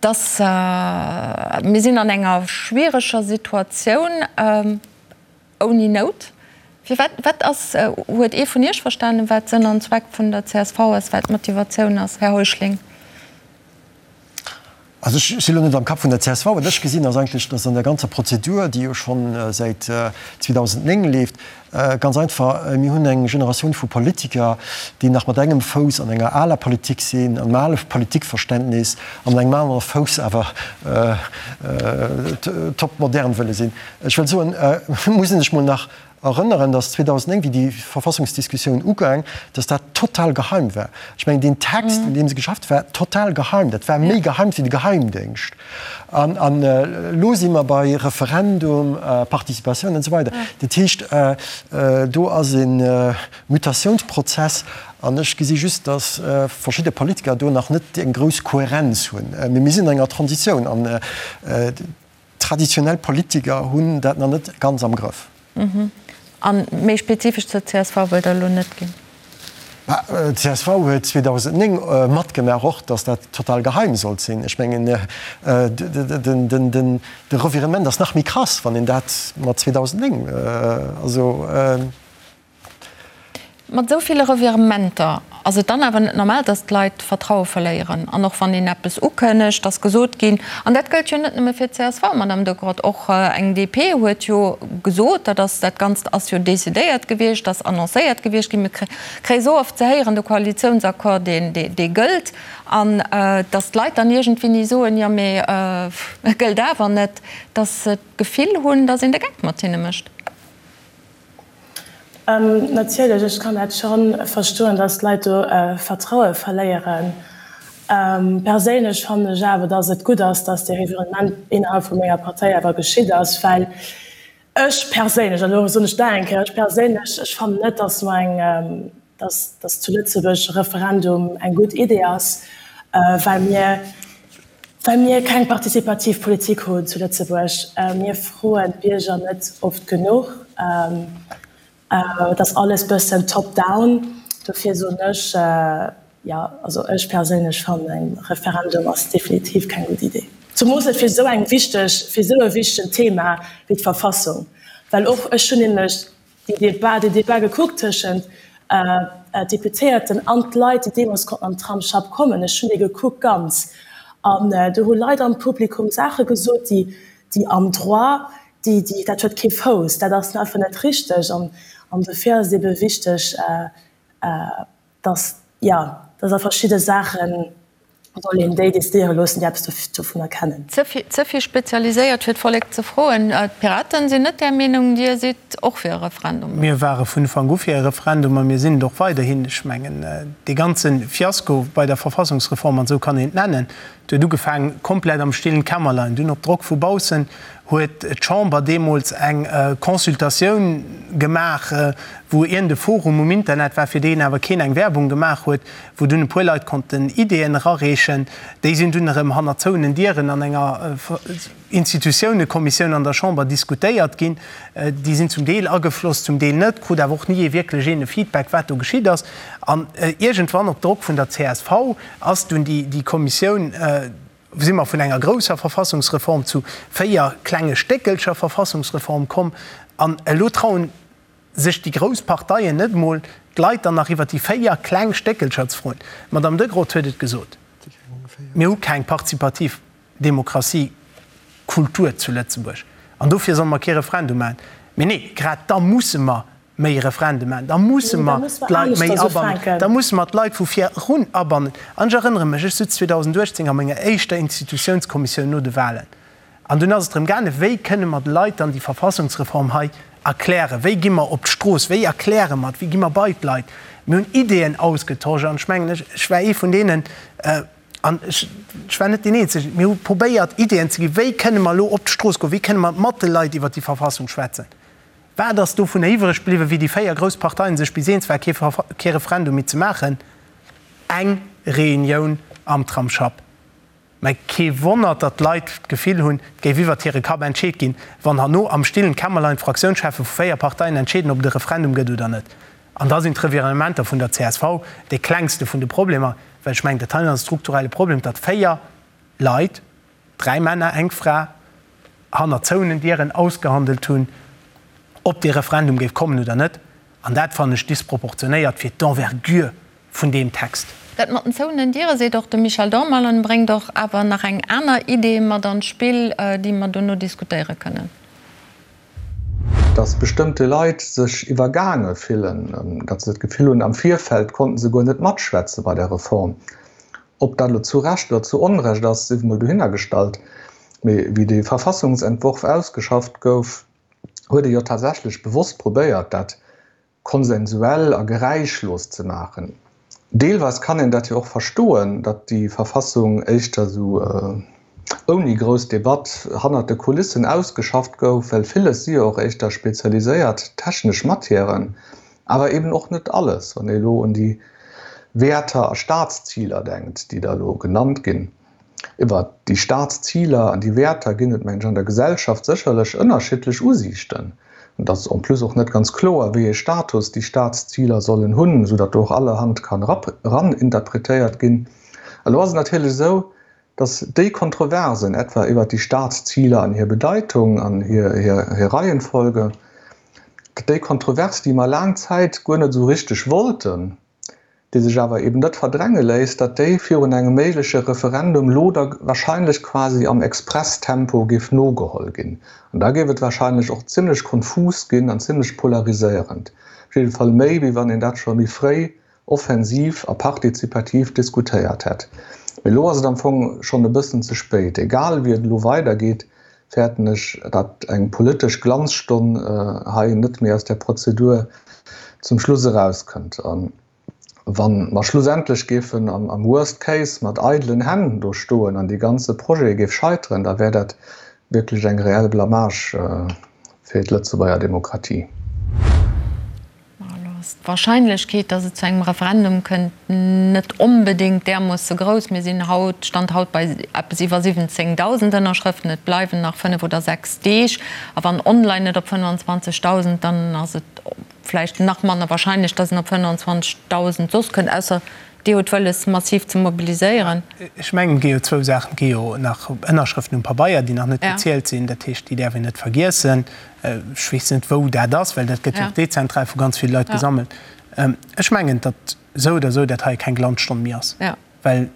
dass mir sinn an enger schwiereger Situatioun. Ouni Nout. Firwat, wat ass, huet ee vun Iech verstanen, wat Sënn an Zweck vun der csv ass, wat d'Motivatioun ass, Här Heuschling? Also ech si lo net am Kapp vun der csv. Wat ech gesinn, ass eigentlech, datt an der ganzer Prozedur, déi jo scho säit 2009 leeft, ganz einfach, mir hunn eng Generatioun vu Politiker, déi nach mat engem Fouss an enger aler Politik sinn, an engem ale Politikverständnis, an mat engem anere Fouss awer topmodern wëlle sinn. Ech wëll soen, et muss een sech mol nach erënneren, datt 2009, wéi déi Verfassungsdiskussioun ugaang, datt dat total geheim war. Ech mengen, deen Text, un deem se geschafft war total geheim. Dat war méi geheim wéi de Geheimdéngscht. An elo si mer bei Referendum, Participatioun an esou weider. Dat heescht, do ass e Mutatiounsprozess. An ech gesi just, datt verschidde Politiker do nach net eng grouss Kohärenz hunn. Mee mir sinn an enger Transitioun. An Traditionell Politiker hunn dat nach net ganz am Grëff. A méi spezifesch zur csv wëllt Der elo net ginn? Bah, d'CSV huet 2009 matgemaach och, datt dat total geheim sollt sinn. Ech mengen, de Revirement ass nach méi krass, wann een dat mat 2009, also. Mat esou ville Revirementer ass et dann awer net normal, datt d'Leit d'Vertraue verléieren. An och wann een eppes ukënnegt, ass gesot ginn, an dat gëllt jo net nëmme fir d'CSV, Madame de Grodt, och eng DP huet jo gesot, dat ass, dat Ganzt ass jo decidéiert gewiescht, ass annoncéiert gewiescht ginn, mir kréie sou oft ze héieren, de Koalitiounsaccord, deen, dee gëllt, an datt d'Leit dann iergendwéini soen, jo mee e gëllt awer net, datt se d'Gefill hunn, datt een de Geck mat hinne mécht. Natierlech, ech kann dat scho verstoen, datt d'Leit do Vertraue verléieren. Perséinlech fannen ech awer, datt et gutt ass, datt dee Revirement innerhalb vu menger Partei awer geschitt ass, well ech perséinlech, an elo soen ech nach eng Kéier, ech perséinlech, ech fannen net, datt mer eng, datt, datt zu Lëtzebuerg e Referendum eng gutt Idee ass, well mir, Well mir keng participativ Politik hunn zu Lëtzebuerg. Mir froen d'Bierger net oft genuch. Et ass alles bëssen top down. Dofir soen ech, jo, also ech perséinlech fannen eng Referendum ass definitiv keng gutt Idee. Zemoos net fir esou eng wichteg, fir esou e wichtegen Thema wéi d'Verfassung. Well och ech hunn nämlech déi Debat, deen Debat gekuckt tëschent d'Deputéierten an d'Leit, déi deemools konnten an d'Tramsschapp kommen. Ech hunn dee gekuckt ganz. An do hu Leit am Publikum Saache gesot, déi, déi am Droit, déi, déi, dat huet kee Fouss, dat ass einfach net richteg. An, an dofir ass et ebe wichteg, dass, jo, dass a verschidde Saachen soll een déi decidéiere loossen, déi eppes dovunner kennen. Ze vill spezialiséiert fir d'Vollek ze froen. D'Piraten sinn net där Meenung. Dir sidd och fir e Referendum? Mir ware vun Ufank u fir e Referendum a mir sinn et och weiderhin. Ech mengen, dee ganze Fiasko bei der Verfassungsreform, an esou kann een et nennen, huet ugefaangen komplett am stillen Kämmerlein. Dunn op Drock vu baussen huet d'Chamber deemools eng Consultatioun gemaach, wou iergend e Forum um Internet war, fir deen awer keen eng Werbung gemaach huet, wou dunn e puer Leit konnten Ideeën erareechen. Déi sinn dunn erëm hanner zouenen Dieren an enger Institutiounekommissioun an der Chamber diskutéiert ginn. Déi sinn zum Deel agefloss, zum Deel net, krut awer och ni ee wierklech een e Feedback, wat do geschitt ass. An iergendwann, op Drock vun der csv, ass dunn déi Kommissioun, si mer vun enger grousser Verfassungsreform zu 4 klenge Stéckelcher Verfassungsreform komm. An elo trauen sech déi grouss Parteien net emol, d'Leit dann nach iwwer déi 4 kleng Stéckelcher ze froen. D'Madame Degrott huet et gesot, Mir hu keng partizipativ Demokratiekultur zu Lëtzebuerg an dofir solle mer kee Referendum maachen. Mee nee, grad da musse mer méi Referende maachen, da musse mer d'Leit méi abannen, da musse mer d'Leit vu vir erun abannen. An ech erënnere mech, ech sutz 2018 a menger éischter Institutiounskommissioun no de Wahlen. An dunn ass et drëm gaangen, wéi kënne mer de Leit dann déi Verfassungsreform hei erklären, wéi gi mer op d'Strooss, wéi erkläre mer et, wéi gi mer bei d'Leit. Mir hunn Ideeën ausgetosch an ech mengen, ech, ech war ee vun deenen, an ech, ech war net deen Eenzegen, mir hu probéiert Ideeën ze ginn, wéi kënne mer elo op d'Strooss goen, wéi kënne mer mat de Leit iwwert déi Verfassung schwätzen. Wat ass dovunner iwwreg bliwwen, wéi déi 4 grouss Parteien sech bis eens waren, kee, kee Referendum méi ze maachen? Eng Reunioun am Tramsschapp. Mä kee Wonner, datt d'Leit d'Gefill hunn, et géif iwwert hire Kapp entscheet ginn, wann herno am stillen Kämmerlein d'Fraktiounscheffe vu 4 Parteien entscheeden, ob et e Referendum gëtt oder net. An da sinn d'Revirementer vun der csv dee klengste vun de Problemer, well ech mengen, dat hei ass e strukturelle Problem, datt 4 Leit, 3 Männer, eng Fra, hanner zouenen Dieren ausgehandelt hunn, ob dee Referendum géif kommen oder net. An dat fannen ech disproportionéiert fir d'Envergure vun deem Text. Dat mat den zouenen Diere seet och de Michel Dormal an bréngt och awer nach eng aner Idee mat an d'Spill, déi mer dono diskutéiere kënnen. Dass bestëmmte Leit sech iwwergaange fillen, datt se d'Gefill hunn, am Virfeld konnten se guer net matschwätze bei der Reform. Ob dat elo zu Recht oder zu Onrecht ass, sief emol dohinnergestallt. Mee wéi dee Verfassungsentworf ausgeschafft gouf, huet ee jo tatsächlech bewosst probéiert, dat konsensuell a geräischlos ze maachen. Deelweis kann een dat jo och verstoen, datt déi Verfassung éischter esou ouni grouss Debatt hannert de Kulissen ausgeschafft gouf, well villes si jo och éischter spezialiséiert technesch Matièren, awer eben och net alles, wann ee elo un déi Wäerter a Staatsziler denkt, déi da elo genannt ginn. Iwwert déi Staatsziler an déi Wäerter ginn et, mengen ech, an der Gesellschaft sécherlech ënnerschiddlech Usiichten. Et ass en plus och net ganz kloer, wéi ee Status déi Staatsziler sollen hunn, esou datt do och allerhand kann eraninterpretéiert ginn. Elo ass et natierlech esou, datt déi Kontroversen, etwa iwwert déi Staatsziler an hir Bedeitung an hir Reihenfolge, datt déi Kontrovers, déi mer laang Zäit guer net esou richteg wollten, déi sech awer eben net verdränge léisst, datt déi virun engem méigleche Referendum lo da wahrscheinlech quasi am Expresstempo géif nogeholl ginn. An da géif et wahrscheinlech och zimlech konfus ginn an zimlech polariséierend. Op jidde Fall méi, wéi wann een dat scho méi fréi offensiv a partizipativ diskutéiert hätt. Mee elo ass et am Fong schonn e bëssen ze spéit. Egal wéi et elo weidergeet, fäerten ech, datt eng politesch Glanzstonn hei net méi aus där Prozedur zum Schluss erauskënnt. A wa mer schlussendlech géifen am Worst Case mat eidelen Hänn do stoen an dee ganze Projet géif scheiteren, da wär dat wierklech eng reell Blamage fir d'Lëtzebuerger Demokratie. Elo ass d'Wahrscheinlechkeet, datt et zu engem Referendum kënnt, net onbedéngt därmoosse grouss. Mir sinn haut, Stand haut, bei eppes iwwer 17.000 Ënnerschrëften. Et bleiwen nach 5 oder 6 Deeg. A wann online net op 25.000, dann ass et vläicht nach manner wahrscheinlech, datt en op 25.000 soss kënnt, ausser Dir hutt wëlles, massiv ze mobiliséieren. Ech mengen, et gi jo zwou Saachen. Et gi jo nach Ënnerschrëften um Pabeier, déi nach net gezielt sinn. Dat heescht, déi däerf een net vergiessen. Ech weess net, wou dat ass, well dat gëtt jo och dezentral vu ganz ville Leit gesammelt. Ech mengen, datt esou oder esou dat hei keng Glanzstonn méi ass, well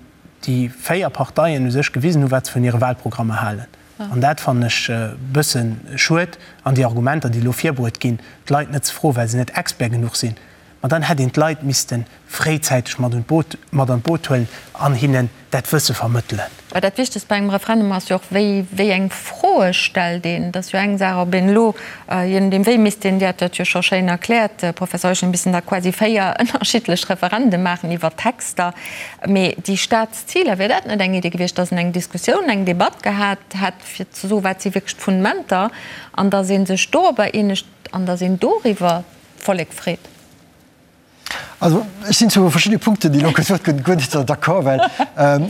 déi 4 Parteien u sech gewisen hunn, wat se vun hire Wahlprogrammer halen. An dat fannen ech e bësse schued. An déi Argumenter, déi elo virbruet ginn, d'Leit net ze froen, well se net Expert genuch sinn, ma dann hätt een d'Leit misste fréizäiteg mat un d'Boot, mat an d'Boot huelen an hinnen dat Wësse vermëttelen. Well dat Wichtegst bei engem Referendum ass jo och, wéi, wéi eng Froe stellt een. Et ass jo eng Saach, ob een elo, je nodeem wéi misst een, Dir hat dat jo scho schéin erkläert, Professor Euschen, missten da quasi 4 ënnerschiddlech Referende maachen iwwer Texter. Mee déi Staatsziler, wier dat net eng Idee gewiescht, datt een eng Diskussioun, eng Debatt gehat hätt, fir ze soen, wat si wierklech d'Fundementer, an datt ee sech dorobber eenegt an datt een doriwwer d'Vollek freet? Also ech sinn zu verschiddene Punkten, déi elo gesot ginn, guer net d'accord, well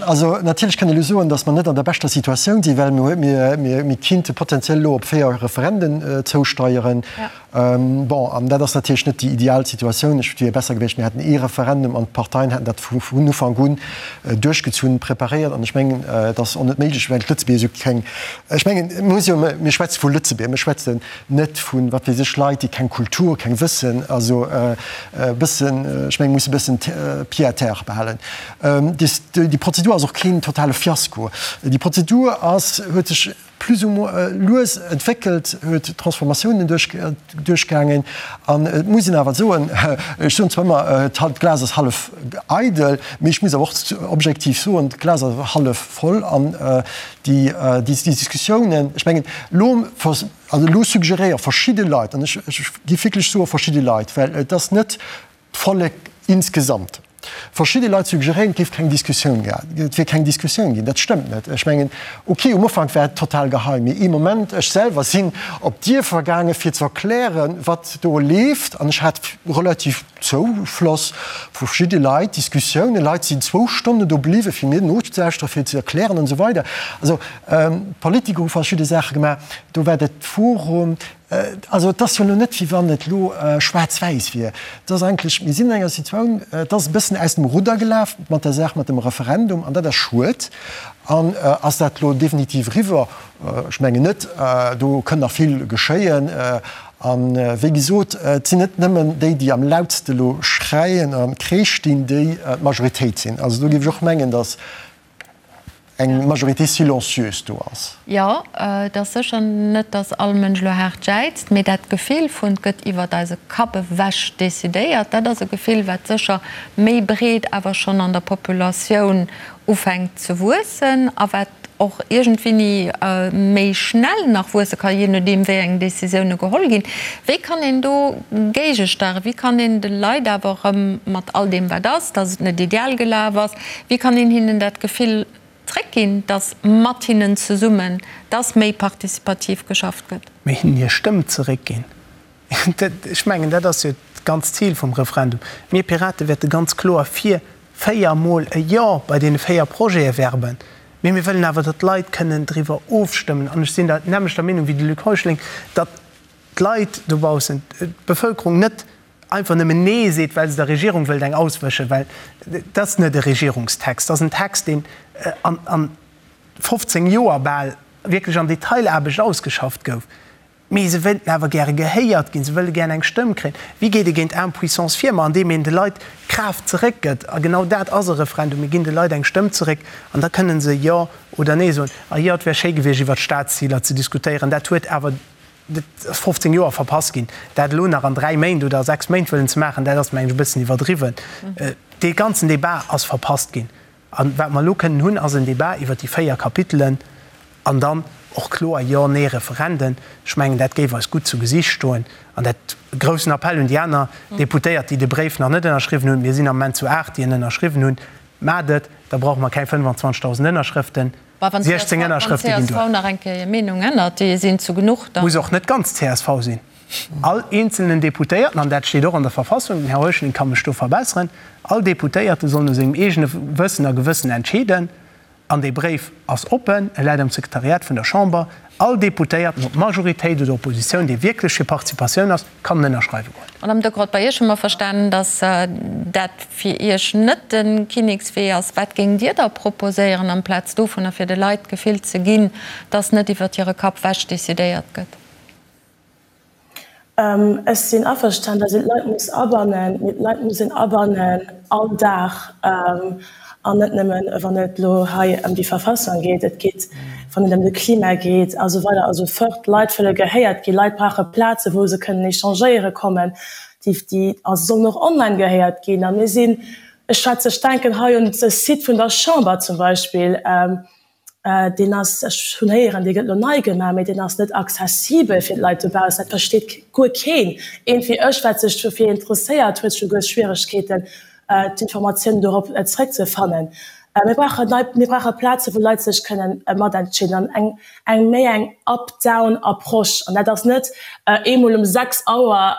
also natierlech kann ee elo soen, datt mer net an der beschter Situatioun sinn, well mir, mir, mir kinnte potenziell elo op 4 Referenden zousteieren. Bon, an dat ass natierlech net déi ideal Situatioun. Ech, et wier besser gewiescht, mir hätten ee Referendum an d'Parteien hätten dat vun Ufank un duerchgezunn, preparéiert. An ech mengen, et ass och net méiglech, well d'Lëtzebuerger esou keng, ech mengen, mir muss jo, mir schwätze vu Lëtzebuerger, mir schwätzen net vun, wat weess ech, Leit, déi keng Kultur, keng Wëssen, also e bëssen, ech mengen, muss e bëssen pied à terre behalen. Déi Prozedur ass och keen totale Fiasko. Déi Prozedur ass, huet sech. plus ou moins lues entwéckelt, huet Transformatiounen duerchgaangen. An et muss een awer soen, ech soen zwar ëmmer, d'Glas ass hallef eidel, mee ech muss awer och objektiv soen, d'Glas ass hallef voll. An déi Diskussiounen, ech mengen, elo, also elo suggeréiere verschidde Leit, an ech géif wierklech soe verschidde Leit, well et ass net d'Vollek insgesamt. Verschidde Leit suggeréieren, et géif keng Diskussioun ginn, et wier keng Diskussioun ginn. Dat stëmmt net. Ech mengen, okay, um Ufank war et total geheim, mee ee Moment, ech selwer sinn op d'Dierfer gaange fir ze erklären, wat do leeft, an ech hat relativ Zoufloss vu verschidde Leit, Diskussiounen, Leit sinn zwou Stonnen do bliwwen, fir mir nozelauschteren, fir ze erklären an esou weider. Also d'Politiker hu verschidde Saache gemaach, do war dat Forum, Also et ass jo elo net, wéi wann et elo schwaarz-wäiss wier. Et ass eigentlech, mir sinn an enger Situatioun, et ass e bëssen aus dem Rudder gelaf mat der Saach mat dem Referendum, an dat ass schued. An ass dat elo definitiv eriwwer? Ech mengen net. Do kënn nach vill geschéien. A wéi gesot, et sinn net nëmmen déi, déi am lautste elo schreien a Kreesch dinn, déi d'Majoritéit sinn. Also do géif ech och mengen, datt eng Majorité silencieuse do ass. Jo, et ass sécher net, datt all Mënsch elo haart jäizt, mee dat Gefill vun 't gëtt iwwert eise Kapp ewech decidéiert, dat ass e Gefill, wat sécher méi breet awer schonn an der Populatioun ufänkt ze wuessen a wat och iergendwéini méi schnell nach wuesse ka, jee nodeem wéi eng Decisioune geholl ginn. Wéi kann een do géigesteieren? Wéi kann een de Leit awer erëm mat all deem wat ass, datt et net ideal gelaf ass, Wéi kann een hinnen dat Gefill zréckginn, dass mat hinnen zesummen, dass méi participativ geschafft gëtt? Mee hinnen hir Stëmm zeréckginn. Ech mengen, dat ass jo d'ganzt Zil vum Referendum. Mir Pirate wäerte ganz kloer fir véiermol e Jo bei deene 4 Projete werben. Mee mir wëllen awer, datt d'Leit kënnen driwwer ofstëmmen. An ech sinn der nämmlechter Meenung wéi de Luc Heuschling, datt d'Leit dobaussen, d'Bevëlkerung net einfach nëmmen Nee seet, well se der Regierung wëllt eng auswëschen, well dat ass net e Regierungstext, dat ass en Text, deen an 15 Joer bal wierklech an Detailaarbecht ausgeschafft gouf. Mee se wéilten awer gäre gehéiert ginn, se wëlle gären eng Stëmm kréien. Wéi geet ee géint Impuissance vir? Ma andeem een de Leit d'Kraaft zeréckgëtt. A genau dat ass e Referendum, Mir ginn de Leit eng Stëmm zeréck an da kënne se Jo oder Nee soen. A jo, et wär schéi gewiescht, iwwert d'Staatsziler ze diskutéieren. Dat huet awer Dat ass 15 Joer verpasst ginn. Dat elo nach an dräi Méint oder a sechs Méint wëllen ze maachen, dat ass, mengen ech, e bëssen iwwerdriwwen. Dee ganzen Débat ass verpasst ginn. A wat mer elo kënnen hunn, ass en Débat iwwert déi véier Kapitelen an dann och kloer Jo-, Nee-Referenden. Ech mengen, dat géif eis gutt zu Gesicht stoen. An dat, groussen Appell un déi aner Deputéiert, déi de Bréif nach net ënnerschriwwen hunn, mir sinn am Moment zu aacht, déi en ënnerschriwwen hunn, Maacht et, da brauche mer keng 25.000 Ënnerschrëften. Bah, wann 16 Ënnerschrëfte ginn duer. Wann csv nach eng Kéier hir Meenung ännert, déi sinn zu genuch, da. Muss och net ganz csv sinn. All eenzelnen Deputéierten, an dat steet och an der Verfassung, den Här Heuschling ka mech do verbesseren, all Deputéierte soll no sengem eegene Wëssen a Gewëssen entscheeden. An dee Bréif ass oppen, e läit am Sekretariat vun der Chamber. All Deputéierten, ob Majoritéit oder Oppositioun, dee wierklech fir Participatioun ass, kann en ënnerschreiwe goen. Madame Decroix, bei Iech hu mer verstanen, datt dat fir Iech net de Kinnekswee ass. Wat géingt Dir da proposéieren amplaz dovunner, fir de Leit d'Gefill ze ginn, datt net iwwert hire Kapp wech decidéiert gëtt? Ech sinn averstan, datt een d'Leit muss abannen, mee d'Leit muss een abannen all Dag an net nëmmen, wann et elo hei ëm déi Verfassung geet. Et geet, wann et ëm de Klima geet a sou weider a sou fort. D'Leit wëlle gehéiert ginn. Leit brauche Plaze wou se kënnen échangéiere kommen. Déi, déi, a se sollen och online gehéiert ginn. A mir sinn, ech schwätze, ech denken hei un de Site vun der Chamber zum Beispill, Deen ass, ech hunn héieren, dee gëtt elo nei gemaach, mee deen ass net accessibel fir d'Leit dobaussen. Dat versteet guer keen. Eent wéi ech, wat sech dofir interesséiert, huet scho guer Schwieregkeeten, d'Informatiounen dorop zeréckzefannen. Mir brauchen nei, mir brauche Plazen, wou Leit sech kënnen matentscheeden an eng, eng méi eng up-down Approche. An dat ass net eemol um 6 Auer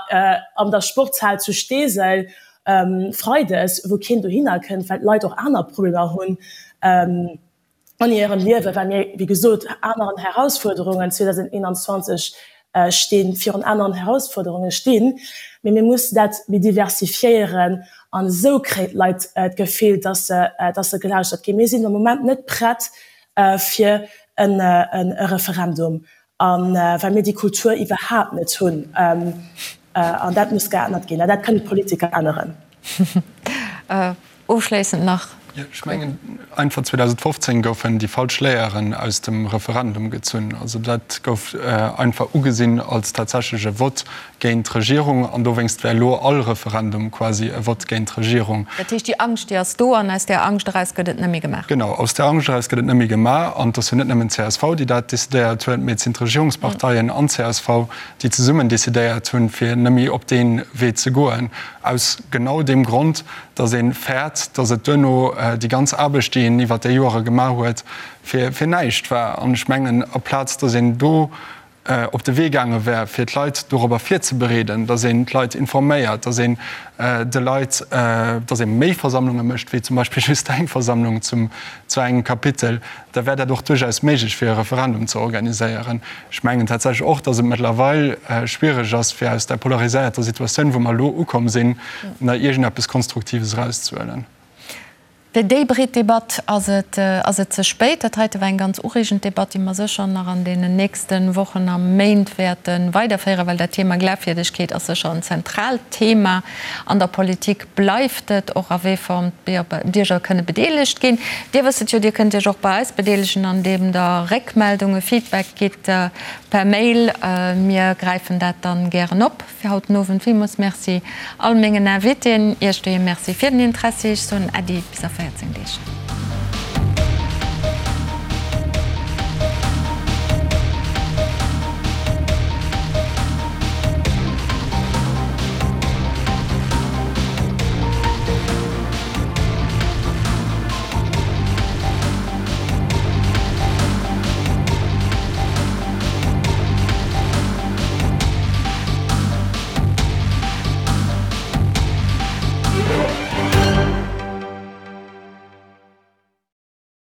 an der Sportshal zu Steesel freides, wou keen dohinner kënnt, well d'Leit och aner Problemer hunn an hirem Liewen, well mir, wéi gesot, aneren Herausfuerderungen 2021 stinn, virun aneren Herausfuerderunge stinn. Mee mir mussen dat méi diversifiéieren an esou kréien d'Leit d'Gefill, dass se, dass se gelauschtert ginn. Mir sinn am Moment net prett fir e Referendum, a well mir déi Kultur iwwerhaapt net hunn. An dat muss geännert ginn. An dat kënnen d'Politiker änneren. Ofschléissend nach. Ech mengen einfach 2015 goufen déi falsch Léieren aus dem Referendum gezunn. Also dat gouf einfach ugesinn als tatsächlech e Vott géint d'Regierung an dowéinst wär elo all Referendum quasi e Vott géint d'Regierung. Dat heescht, déi Angscht, déi ass do an aus där Angscht eraus gëtt et net méi gemaach. Genau, aus där Angscht eraus gëtt et net méi gemaach. An et ass jo net nëmmen d'CSV, déi dat decidéiert huet, mee et sinn d'Regierungsparteien an d'CSV, déi zesummen decidéiert hunn, fir net méi op dee Wee ze goen, aus genau deem Grond, datt ee fäert, datt et duerno déi ganz Aarbecht, déi een iwwert déi Joere gemaach huet, fir näischt war. An ech mengen, aplaz datt een do op de Wee gaange wär, fir d'Leit dorobber virzebereeden, datt een d'Leit informéiert, datt een de Leit, datt ee méi Versammlunge mécht wéi zum Beispill just eng Versammlung zum, zu engem Kapitel, da wär dat och duerchaus méiglech, fir e Referendum ze organiséieren. Ech mengen tatsächlech och, datt et mëttlerweil schwiereg ass, fir aus där polariséierter Situatioun, wou mer elo ukomm sinn, nach iergendeppes Konstruktives erauszehuelen. Fir déi breet Debatt ass et ass et ze spéit. Dat heite war eng ganz ureegend Debatt, déi mer sécher nach an deenen nächste Wochen a Méint wäerte weiderféieren, well dat Thema Glafwierdegkeet ass sécher en zentraalt Thema an der Politik. Bleift et och a wéi Form d'Bierger kënne bedeelegt ginn. Dir wësst et jo, Dir kënnt Iech och bei eis bedeelegen, andeem Der Réckmeldungen, Feedback gitt per Mail. Mir gräifen dat dann gären op. Fir haut den Owend villmools Merci all mengen Invitéen, Iech doheem Merci fir den Interessi. Ech soen Äddi bis a 14 Deeg.